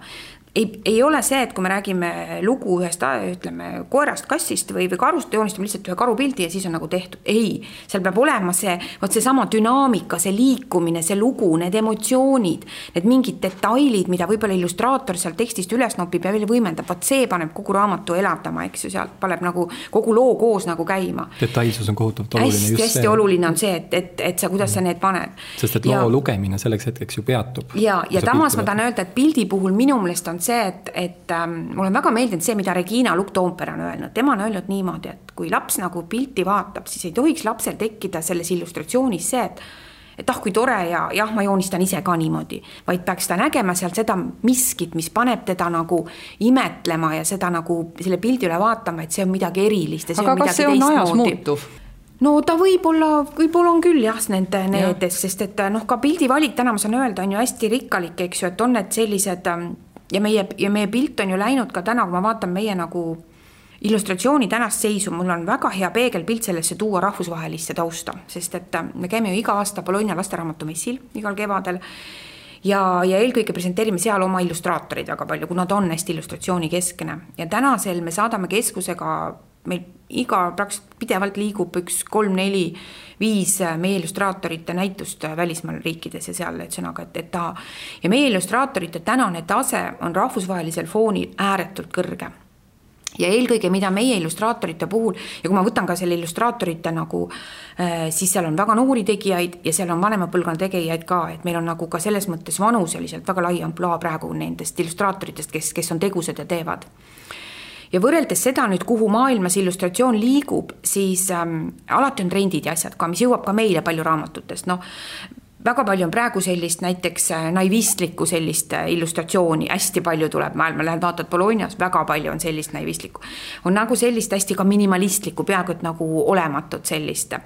S4: Ei ole see, et kui me räägime lugu ühest, ütleme, koerast, kassist või karust, joonistame lihtsalt ühe karupildi ja siis on nagu tehtud. Ei, seal peab olema see sama dünaamika, see liikumine, see lugu, need emotsioonid, need mingid detailid, mida võib-olla illustraator seal tekstist üles nopib ja veel võimendab. Vaat see paneb kogu raamatu elavdama, eks ju, sealt paneb nagu kogu loo koos nagu käima.
S3: Detailsus on kohutavalt oluline.
S4: Hästi oluline on see, et sa, kuidas sa need paned.
S3: Sest et loo lugemine selleks hetkeks ju peatub.
S4: Ja tamas ma tahan öelda, et pildi puhul minu meelest on see, et mul on väga meeldinud see, mida Regina Lukk-Toompere on öelnud. Tema on öelnud niimoodi, et kui laps nagu pilti vaatab, siis ei tohiks lapsel tekkida selles illustratsioonis see, et kui tore ja ma joonistan ise ka niimoodi, vaid peaks ta nägema sealt seda miskit, mis paneb teda nagu imetlema ja seda nagu selle pildi üle vaatama, et see on midagi erilist.
S2: Aga kas see on ajas muutuv?
S4: No ta võib-olla on küll nendes, sest et ka pildivalik täna ma saan öelda on ju hästi rikkalik, eks ju, et on need sellised ja meie pilt on ju läinud ka täna, kui ma vaatan meie nagu illustratsiooni tänast seisu, mul on väga hea peegelpilt sellesse tuua rahvusvahelisse tausta, sest et me käime ju iga aasta Bologna lasteraamatumessil igal kevadel ja eelkõige presenteerime seal oma illustraatorid väga palju, kuna ta on hästi illustratsiooni keskne ja tänasel me saadame keskusega meil praktiliselt pidevalt liigub 1, 3, 4, 5 meie illustraatorite näitust välismaal riikides ja seal, et sõnaga, et ta ja meie illustraatorite tänane tase on rahvusvahelisel foonil ääretult kõrge. Ja eelkõige, mida meie illustraatorite puhul, ja kui ma võtan ka selle illustraatorite nagu, siis seal on väga noori tegijaid ja seal on vanema põlvkonna tegijaid ka, et meil on nagu ka selles mõttes vanuseliselt väga lai amplua praegu nendest illustraatoritest, kes on tegused ja teevad. Ja võrreldes seda nüüd, kuhu maailmas illustratsioon liigub, siis alati on trendid ja asjad ka, mis jõuab ka meile palju raamatutest. Väga palju on praegu sellist näiteks naivistlikku sellist illustratsiooni, hästi palju tuleb maailma, lähed vaatad Bolognas, väga palju on sellist naivistlikku. On nagu sellist hästi ka minimalistlikku, peaaegu et nagu olematut sellist.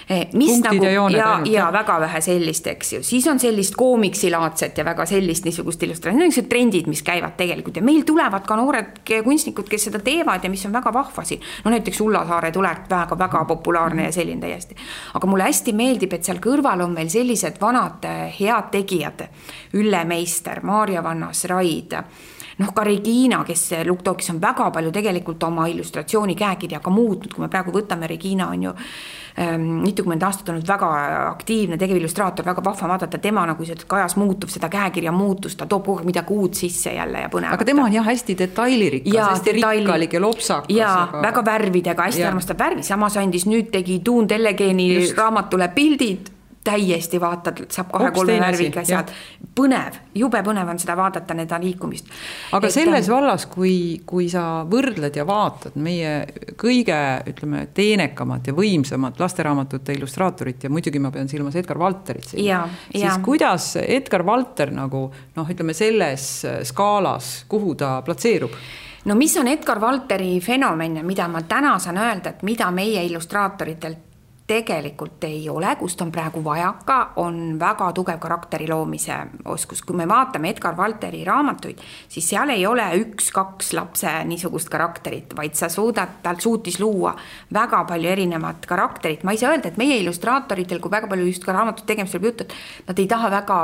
S4: Mis
S2: punktid
S4: nagu,
S2: ja jooned.
S4: Ja väga vähe sellist, eks ju. Siis on sellist koomiksilaadset ja väga sellist niisugust illustratsiooni. Need on trendid, mis käivad tegelikult. Ja meil tulevad ka noored kunstnikud, kes seda teevad ja mis on väga vahvasi. Näiteks Ulla Saare tuleb väga populaarne ja selline täiesti. Aga mulle hästi meeldib, et seal kõrval on meil sellised vanad head tegijad. Ülle Meister, Maarja Vannas, Raid, ka Regina, kes Lukk-Tookis on väga palju tegelikult oma illustratsiooni käekirja ka muutnud, kui me praegu võtame, Regina on ju mitukümmend aastat olnud väga aktiivne tegevillustraator, väga vahva vaadata tema nagu see kajas muutub, seda käekirja muutus, ta toob kogu midagi uut sisse jälle ja põnevat.
S2: Aga tema on jah hästi detailirikas, hästi rikkalik ja lopsakas.
S4: Ja väga värvidega, hästi armastab värvi, samas andis nüüd tegi Tuun Tellegeeni raamatule pildid täiesti vaatad, saab 2-3 värviga asjad. Põnev, jube põnev on seda vaadata, neda liikumist.
S2: Aga selles vallas, kui sa võrdled ja vaatad meie kõige, ütleme, teenekamat ja võimsamat lasteraamatute illustraatorit ja muidugi ma pean silmas Edgar Valterit siin, siis kuidas Edgar Valter nagu, ütleme, selles skaalas, kuhu ta platseerub?
S4: No mis on Edgar Valteri fenomen, mida ma täna saan öelda, et mida meie illustraatoritelt tegelikult ei ole, kust on praegu vajaka, on väga tugev karakteri loomise oskus. Kui me vaatame Edgar Valteri raamatuid, siis seal ei ole 1-2 lapse niisugust karakterit, vaid tal suutis luua väga palju erinevat karakterit. Ma ei saa öelda, et meie illustraatoritel, kui väga palju just ka raamatut tegemisel jutud, nad ei taha väga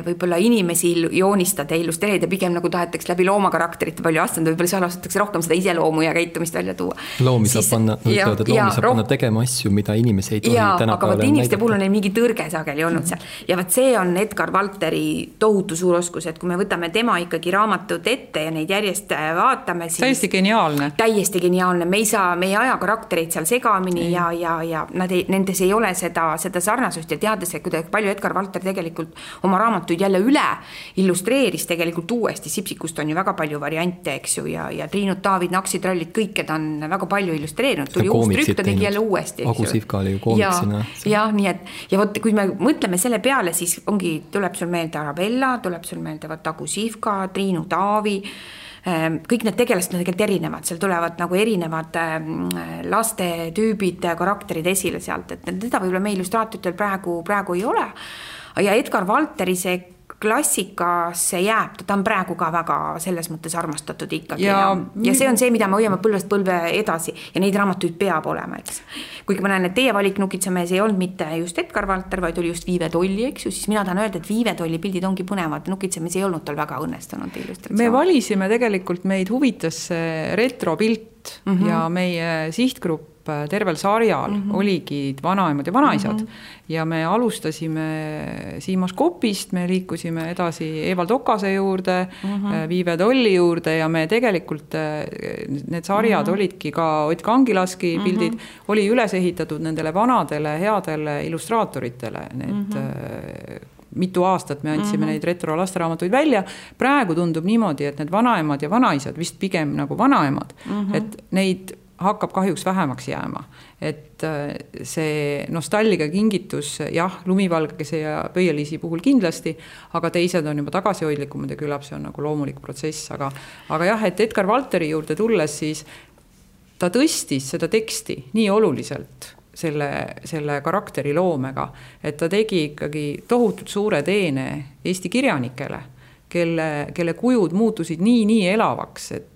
S4: võib-olla inimesi joonistada ja illustreerida, pigem nagu tahetakse läbi loomakarakterite palju astunud, võib-olla seal astutakse rohkem seda iseloomu ja käitumist välja tuua.
S3: Loomi saab panna tegema asju, mida inimesi ei tohi tänapäeval
S4: aga võt inimeste puhul on neil mingi tõrge sageli olnud seal. Ja võt see on Edgar Valteri tohutu suur oskus, et kui me võtame tema ikkagi raamatud ette ja neid järjest vaatame, siis
S2: täiesti geniaalne.
S4: Täiesti geniaalne. Me ei aja karaktereid seal segamini ja nendes ei ole seda sarnasust ja teades, et kuidas palju Edgar Valter tegelikult oma raamatuid jälle üle illustreeris tegelikult uuesti. Sipsikust on ju väga palju variante, eks ju, ja Triinut, Taavid, Naksitrallid, kõike ta on väga palju illustreerinud. Tuli uus trükk, ta tegi jälle uuesti.
S3: Agu Sihvka oli ju koomiksina.
S4: Ja nii et, ja võt, kui me mõtleme selle peale, siis tuleb sul meelde Arabella, tuleb sul meelde Agu Sihvka, Triinu, Taavi, kõik need tegelased on tegelikult erinevad, seal tulevad nagu erinevad laste tüübid, karakterid esile sealt, et teda võib-olla me illustraatitel praegu ei ole. Ja Edgar Valteri see klassikasse jääb, ta on praegu ka väga selles mõttes armastatud ikkagi. Ja see on see, mida me hoiame põlvest põlve edasi ja neid raamatuid peab olema, eks. Kuigi ma näen, et teie valik Nukitsamees ei olnud mitte just Edgar Valter, vaid oli just Viive Tolli, eks ju, siis mina tahan öelda, et Viive Tolli pildid ongi põnevad, Nukitsamees ei olnud tal väga õnnestunud illustratsioon. Me
S2: valisime tegelikult, meid huvitas retropilt ja meie sihtgrupp tervel sarjal oligi vanaemad ja vanaisad ja me alustasime Siimas Kopist, me liikusime edasi Evald Okase juurde, Viive Tolli juurde ja me tegelikult need sarjad olidki ka Ott Kangilaski pildid, oli üles ehitatud nendele vanadele headele illustraatoritele, need mitu aastat me andsime neid retro lasteraamatuid välja. Praegu tundub niimoodi, et need vanaemad ja vanaisad, vist pigem nagu vanaemad, et neid hakkab kahjuks vähemaks jääma. Et see nostalgia kingitus, jah, Lumivalgese ja Pöieliisi puhul kindlasti, aga teised on juba tagasihoidlikumad ja küllap see on nagu loomulik protsess. Aga jah, et Edgar Valteri juurde tulles, siis ta tõstis seda teksti nii oluliselt selle karakteri loomega, et ta tegi ikkagi tohutult suure teene Eesti kirjanikele, kelle kujud muutusid nii elavaks, et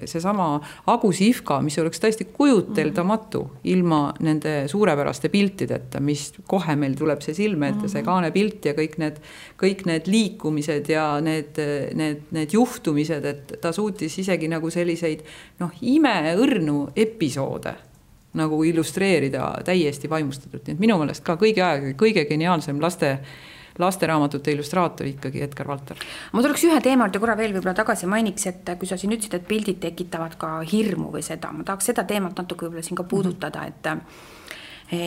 S2: see sama Agu Sihvka, mis oleks täiesti kujuteldamatu ilma nende suurepäraste piltideta, mis kohe meil tuleb see silme ette, see kaanepilt ja kõik need liikumised ja need juhtumised, et ta suutis isegi nagu selliseid imeõrnu episoode nagu illustreerida täiesti vaimustatult. Nii et minu meelest ka kõige geniaalsem lasteraamatute illustraator ikkagi Edgar Valter.
S4: Ma tuleks ühe teemalt ja korra veel võib-olla tagasi mainiks, et kui sa siin ütlesid, et pildid tekitavad ka hirmu või seda, ma tahaks seda teemat natuke võib-olla siin ka puudutada, et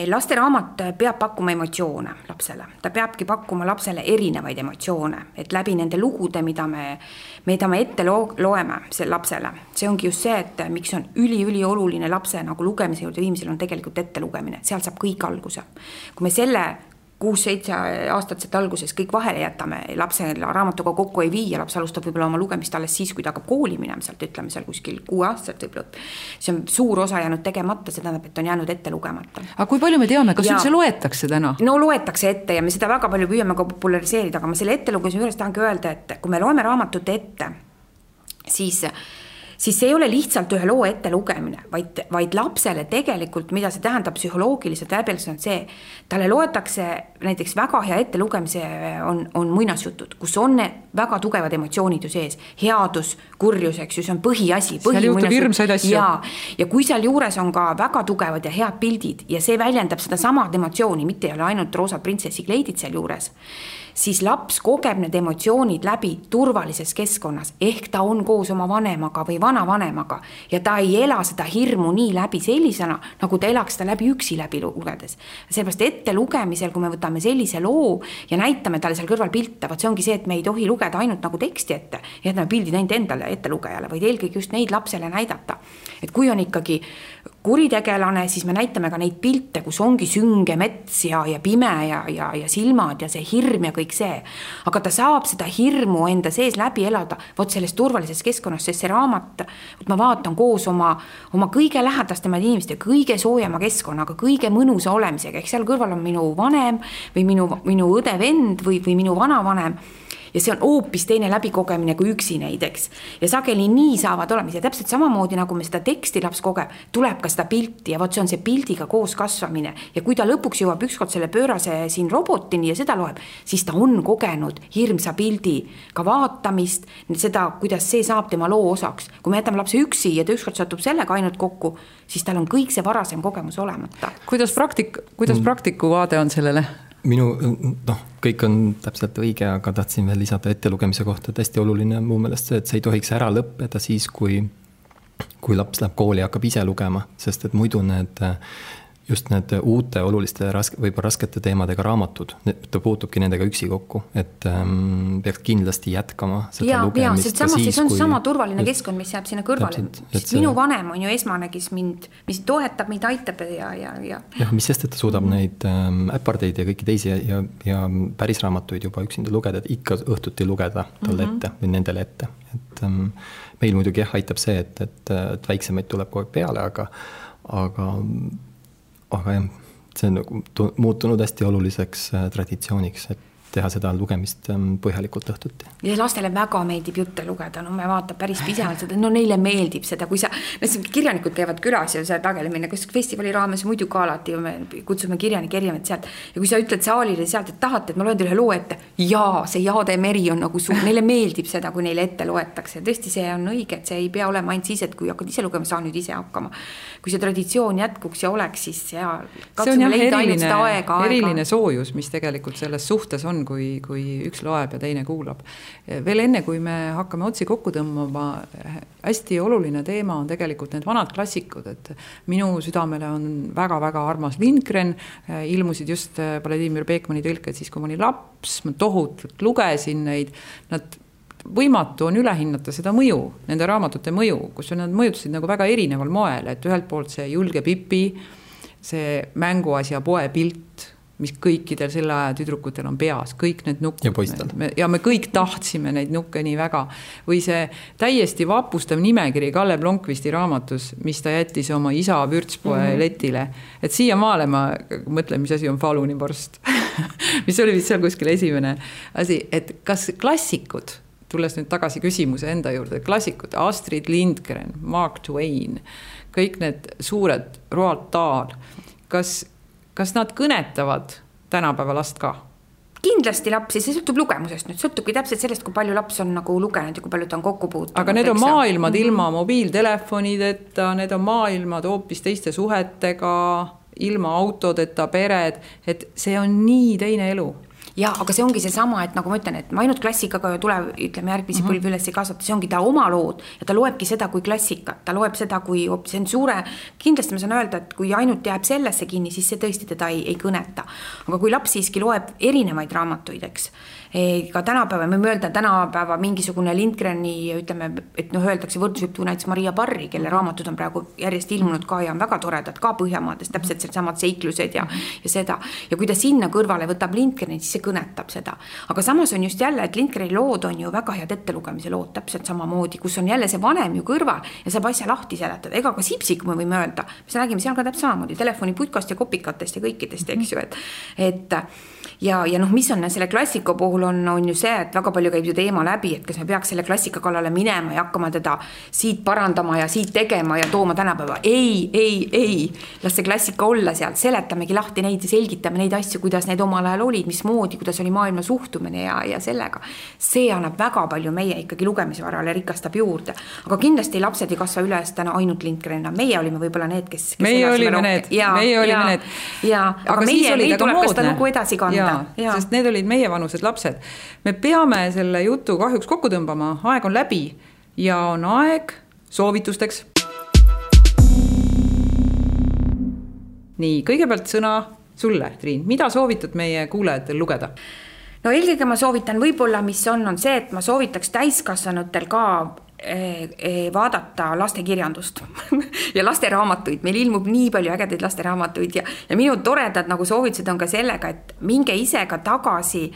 S4: lasteraamat peab pakkuma emotsioone lapsele. Ta peabki pakkuma lapsele erinevaid emotsioone, et läbi nende lugude, mida me ette loeme lapsele. See ongi just see, et miks on üli oluline lapse nagu lugemise juurde viimisel on tegelikult ette lugemine. Seal saab kõik alguse. Kui me selle 6-7 aastat alguses kõik vahele jätame, lapse raamatuga kokku ei vii ja laps alustab võib-olla oma lugemist alles siis, kui ta hakkab kooli minema sealt, ütleme seal kuskil 6 aastat võib-olla. See on suur osa jäänud tegemata, see tähendab, et on jäänud ette lugemata.
S2: Aga kui palju me teame, kas üldse loetakse täna?
S4: No loetakse ette ja me seda väga palju püüame ka populariseerida, aga ma selle ette lugemise juures tahangi öelda, et kui me loeme raamatut ette, siis see ei ole lihtsalt ühe loo ette lugemine, vaid lapsele tegelikult, mida see tähendab psühholoogiliselt läbiselt, on see, talle loetakse näiteks väga hea ette lugemise on muinasjutud, kus on väga tugevad emotsioonid ju sees, headus, kurjus, eks ju, see on põhiasi.
S2: Seal juhtub hirmsaid asju.
S4: Ja kui seal juures on ka väga tugevad ja head pildid ja see väljendab seda samad emotsiooni, mitte ei ole ainult roosad printsessi kleidid seal juures, siis laps kogeb need emotsioonid läbi turvalises keskkonnas, ehk ta on koos oma vanemaga või vanavanemaga ja ta ei ela seda hirmu nii läbi sellisena, nagu ta elaks seda läbi üksi läbi lugedes. Sellepärast ette lugemisel, kui me võtame sellise loo ja näitame talle seal kõrval pilte, vaat see ongi see, et me ei tohi lugeda ainult nagu teksti ette ja jätame pildid ainult endale ette lugejale, vaid eelkõige just neid lapsele näidata. Et kui on ikkagi kuritegelane, siis me näitame ka neid pilte, kus ongi sünge mets ja pime ja silmad ja see hirm ja kõik see. Aga ta saab seda hirmu enda sees läbi elada, vot selles turvalises keskkonnas, sest see raamat, ma vaatan koos oma kõige lähedastemaid inimeste, kõige soojema keskkonnaga, kõige mõnusa olemisega, ehk seal kõrval on minu vanem või minu õde vend või minu vanavanem. Ja see on hoopis teine läbikogemine kui üksi neid, eks. Ja sageli nii saavad olemas ja täpselt samamoodi, nagu me seda teksti laps kogeb, tuleb ka seda pilti ja vot see on see pildiga koos kasvamine. Ja kui ta lõpuks jõuab ükskord selle pöörase siin robotini ja seda loeb, siis ta on kogenud hirmsa pildi ka vaatamist, seda, kuidas see saab tema loo osaks. Kui me jätame lapse üksi ja ta ükskord satub sellega ainult kokku, siis tal on kõik see varasem kogemus olemata.
S2: Kuidas praktiku vaade on sellele?
S3: Kõik on täpselt õige, aga tahtsin veel lisada ettelugemise kohta, et hästi oluline on muu meelest see, et see ei tohiks ära lõppeda siis, kui laps läheb kooli ja hakkab ise lugema, sest et muidu just need uute oluliste võib-olla raskete teemadega raamatud, ta puutubki nendega üksi kokku, et peaks kindlasti jätkama seda lugemist.
S4: See on sama turvaline keskkond, mis jääb sinna kõrvale. Minu vanem on ju esmane, kes mis toetab, mida aitab ja.
S3: Mis sest, et ta suudab neid äpardeid ja kõiki teisi ja päris raamatuid juba üksinda lugeda, et ikka õhtuti lugeda talle ette või nendele ette. Et meil muidugi aitab see, et väiksemaid tuleb kogu aeg peale, aga jah, see on muutunud hästi oluliseks traditsiooniks, et teha seda lugemist põhjalikult õhtuti.
S4: Ja lastele väga meeldib jutte lugeda, me vaatab päris pisevalt seda, neile meeldib seda, kui kirjanikud käivad külas ja see tagelemine, kus festivali raames muidu ka alati me kutsume kirjanik erinevad sealt ja kui sa ütled saalile sealt, et tahate, et ma loen teile loo ette, see Jaade meri on nagu suur, neile meeldib seda, kui neile ette loetakse. Tõesti, see on õige, et see ei pea olema ainult siis, et kui hakkad ise lugema, saa nüüd ise hakkama. Kui see traditsioon jätkuks ja oleks, siis
S2: katsume leida ainult seda aega. Eriline soojus, mis tegelikult selles suhtes on, kui üks loeb ja teine kuulab. Veel enne, kui me hakkame otsi kokku tõmbama, hästi oluline teema on tegelikult need vanad klassikud, et minu südamele on väga-väga armas Lindgren, ilmusid just Vladimir Beekmani tõlked siis, kui ma olin laps, ma tohutult lugesin neid, võimatu on ülehinnata seda mõju, nende raamatute mõju, kus nad mõjutasid nagu väga erineval moel, et ühelt poolt see julge Pipi, see mänguasja poe pilt, mis kõikidel selle aja tüdrukutel on peas, kõik need nukud.
S3: Ja poistel.
S2: Ja me kõik tahtsime neid nukke nii väga. Või see täiesti vapustav nimekiri Kalle Blomqvisti raamatus, mis ta jättis oma isa vürtspoe letile. Et siia maale ma mõtlen, mis asi on Falunivorst, mis oli vist seal kuskil esimene asi, et kas klassikud, tulles nüüd tagasi küsimuse enda juurde, klassikud, Astrid Lindgren, Mark Twain, kõik need suured Roald Dahl, kas nad kõnetavad tänapäeva last ka?
S4: Kindlasti lapsi, see sõltub lugemusest. Nüüd sõltubki täpselt sellest, kui palju laps on nagu lugenud ja kui palju ta on kokku puutunud.
S2: Aga need on maailmad ilma mobiiltelefonideta, need on maailmad hoopis teiste suhetega, ilma autodeta pered, et see on nii teine elu.
S4: Ja, aga see ongi see sama, et nagu ma ütlen, et ma ainult klassikaga tuleb, ütleme, järgmisi põlvi üles ei kasvata, see ongi ta oma lood ja ta loebki seda kui klassikat, ta loeb seda kui see on suure, kindlasti ma saan öelda, et kui ainult jääb sellesse kinni, siis see tõesti teda ei kõneta. Aga kui laps siiski loeb erinevaid raamatuid, eks, ka tänapäeva, me öelda tänapäeva mingisugune Lindgreni, ütleme, et öeldakse võrdusjutu näiteks Maria Parri, kelle raamatud on praegu järjest ilmunud ka ja on väga toredad ka Põhjamaades, täpselt samad seiklused ja seda. Ja kui ta sinna kõrvale võtab Lindgreni, siis see kõnetab seda. Aga samas on just jälle, et Lindgreni lood on ju väga head ettelugemise lood, täpselt samamoodi, kus on jälle see vanem ju kõrval ja saab asja lahti seletada. Ega ka Sipsik me võime öelda, me räägime seal ka täpselt samamoodi telefoniputkast ja kopikatest ja kõikidest, eks ju, et ja mis on selle klassika puhul on ju see, et väga palju käib ju teema läbi, et kas me peaks selle klassika kallale minema ja hakkama teda siit parandama ja siit tegema ja tooma tänapäeva. Ei, las see klassika olla seal, seletamegi lahti neid ja selgitame neid asju, kuidas need omal ajal olid, mismoodi, kuidas oli maailma suhtumine ja sellega. See annab väga palju meie ikkagi lugemisvarale rikastab juurde. Aga kindlasti lapsed ei kasva üles täna ainult Lindgrenina. Meie olime võib-olla need, kes
S2: meie olime need.
S4: Aga meil tuleb ka seda nagu edasi kanda.
S2: Sest need olid meie vanused lapsed. Me peame selle jutu kahjuks kokku tõmbama, aeg on läbi ja on aeg soovitusteks. Nii, kõigepealt sõna sulle, Triin. Mida soovitad meie kuulajatel lugeda?
S4: No eelkõige ma soovitan võib-olla, mis on see, et ma soovitaks täiskasvanutel ka vaadata lastekirjandust ja lasteraamatuid. Meil ilmub nii palju ägedaid lasteraamatuid ja minu toredad nagu soovitused on ka sellega, et minge ise ka tagasi,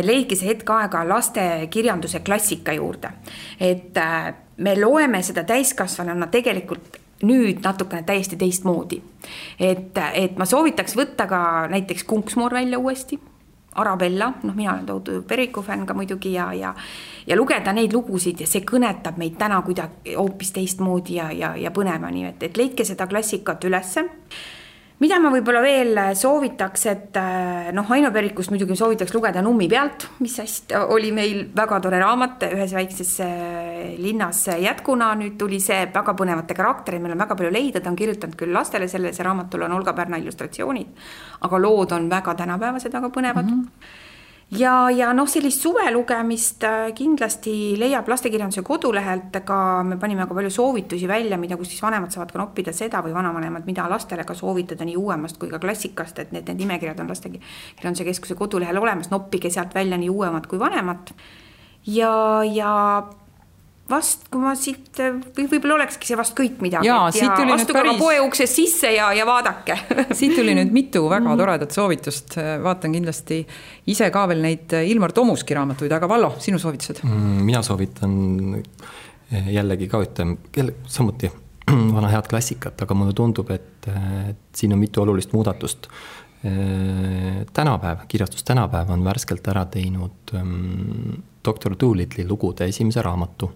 S4: leidke see hetk aega lastekirjanduse klassika juurde. Et me loeme seda täiskasvanuna tegelikult nüüd natukene täiesti teistmoodi. Et ma soovitaks võtta ka näiteks Kunksmoor välja uuesti, Arabella, mina olen tohutu Periku fänn ka muidugi ja lugeda neid lugusid ja see kõnetab meid täna kuidagi hoopis teistmoodi ja põnevani, et leidke seda klassikat ülesse. Mida ma võib-olla veel soovitaks, et Aino Perikust muidugi soovitaks lugeda Nummi pealt, mis hästi oli meil väga tore raamat ühes väikses linnas jätkuna, nüüd tuli see väga põnevate karakterid, meil on väga palju leida, ta on kirjutanud küll lastele, see raamatul on Olga Pärna illustratsioonid, aga lood on väga tänapäevased, väga põnevad. Ja sellist suve lugemist kindlasti leiab lastekirjanduse kodulehelt, ka me panime ka palju soovitusi välja, mida kus siis vanemad saavad ka noppida seda või vanavanemad, mida lastele ka soovitada nii uuemast kui ka klassikast, et need nimekirjad on lastekirjanduse keskuse kodulehel olemas, noppige sealt välja nii uuemad kui vanemad. Ja vast, kui ma siit, võib-olla olekski see vast kõik midagi.
S2: Ja astuge
S4: ka poe uksest sisse ja vaadake.
S2: Siit tuli nüüd mitu väga toredat soovitust. Vaatan kindlasti ise ka veel neid Ilmar Tomuski raamatuid, aga Vallo, sinu soovitused?
S3: Mina soovitan jällegi ka samuti vana head klassikat, aga mulle tundub, et siin on mitu olulist muudatust. Kirjastus Tänapäev on värskelt ära teinud Dr. Doolittle'i lugude esimese raamatu.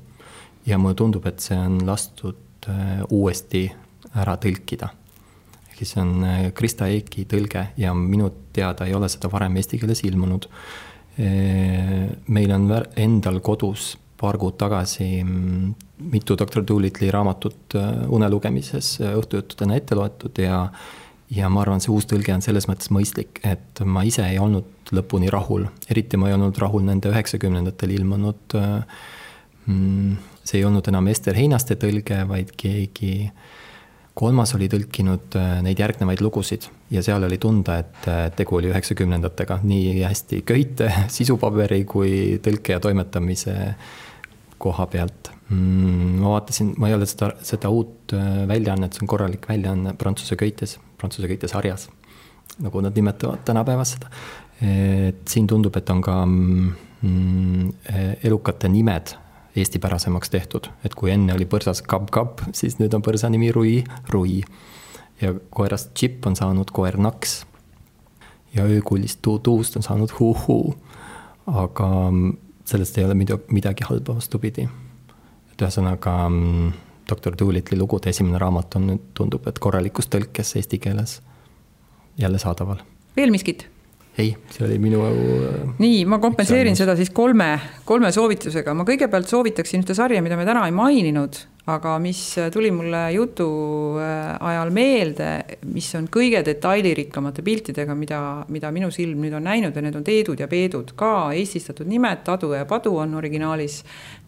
S3: Ja mulle tundub, et see on lastud uuesti ära tõlkida. See on Krista Eiki tõlge ja minu teada ei ole seda varem eesti keeles ilmunud. Meil on endal kodus paar kuud tagasi mitu Dr. Doolittle'i raamatut unelugemises õhtujuttudena ette loetud ja ma arvan, see uus tõlge on selles mõttes mõistlik, et ma ise ei olnud lõpuni rahul. Eriti ma ei olnud rahul nende 90-ndatel ilmunud. See ei olnud enam Ester Heinaste tõlge, vaid keegi kolmas oli tõlkinud neid järgnevaid lugusid ja seal oli tunda, et tegu oli 90-ndatega nii hästi köite, sisupaberi kui tõlke ja toimetamise koha pealt. Ma vaatasin, ma ei ole seda uut väljaannet, see on korralik väljaanne Prantsuse köite sarjas, nagu nad nimetavad tänapäevas seda. Siin tundub, et on ka elukate nimed eestipärasemaks tehtud, et kui enne oli põrsas Kab, siis nüüd on põrsa nimi Rui ja koerast Chip on saanud koer Naks ja öökullist Tuust on saanud Huu, aga sellest ei ole midagi halba vastupidi. Et ühesõnaga Dr. Doolittle'i lugude esimene raamat on nüüd tundub, et korralikus tõlkes eesti keeles jälle saadaval.
S2: Veel miskit?
S3: Ei, see oli minu...
S2: Nii, ma kompenseerin seda siis kolme soovitusega. Ma kõigepealt soovitaksin ühte sarja, mida me täna ei maininud, aga mis tuli mulle jutu ajal meelde, mis on kõige detailirikkamate piltidega, mida minu silm nüüd on näinud ja need on Teedud ja Peedud. Ka eestistatud nimed, Tadu ja Padu on originaalis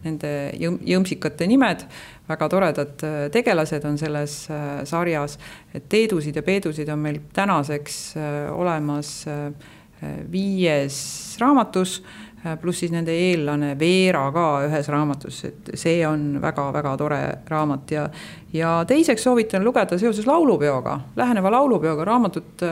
S2: nende jõmsikate nimed. Väga toredad tegelased on selles sarjas. Et Teedusid ja Peedusid on meil tänaseks olemas 5 raamatus, pluss siis nende eellane Veera ka ühes raamatus, et see on väga-väga tore raamat ja teiseks soovitan lugeda seoses laulupeoga, läheneva laulupeoga raamatut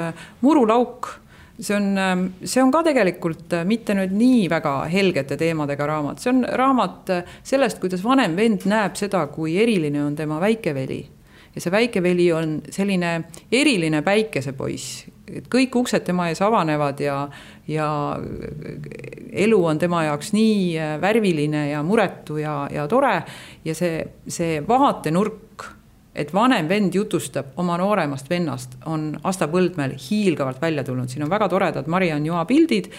S2: Muru lauk. See on ka tegelikult mitte nüüd nii väga helgete teemadega raamat. See on raamat sellest, kuidas vanem vend näeb seda, kui eriline on tema väikeveli. Ja see väikeveli on selline eriline päikesepoiss. Kõik uksed tema ees avanevad ja elu on tema jaoks nii värviline ja muretu ja tore. Ja see vaatenurk, et vanem vend jutustab oma nooremast vennast, on Asta Põldmäel hiilgavalt välja tulnud. Siin on väga toredad Mariann Joa pildid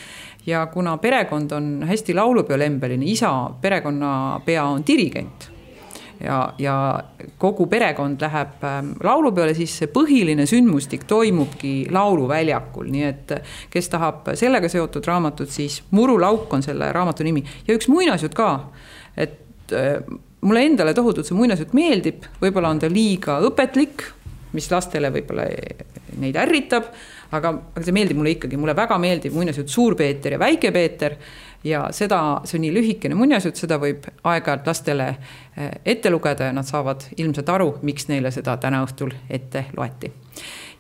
S2: ja kuna perekond on hästi laulupeolembeline, isa perekonnapea on dirigent ja kogu perekond läheb laulupeole, siis see põhiline sündmustik toimubki lauluväljakul, nii et kes tahab sellega seotud raamatut, siis Muru lauk on selle raamatu nimi ja üks muinasjutt ka, et mulle endale tohutult see muinasjutt meeldib, võib-olla on ta liiga õpetlik, mis lastele võib-olla neid ärritab, aga see meeldib mulle ikkagi, mulle väga meeldib muinasjutt Suur Peeter ja Väike Peeter ja see on nii lühikene muinasjutt, seda võib aeg-ajalt lastele ette lugeda ja nad saavad ilmselt aru, miks neile seda täna õhtul ette loeti.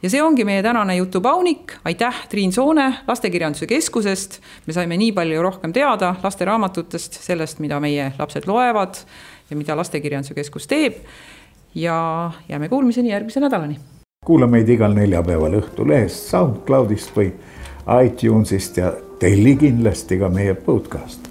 S2: Ja see ongi meie tänane jutupaunik. Aitäh Triin Soone Lastekirjanduse Keskusest. Me saime nii palju rohkem teada lasteraamatutest, sellest, mida meie lapsed loevad ja mida Lastekirjanduse Keskus teeb. Ja jääme kuulmiseni järgmise nädalani.
S1: Kuula meid igal neljapäeval Õhtulehest, SoundCloudist või iTunesist ja telli kindlasti ka meie podcast.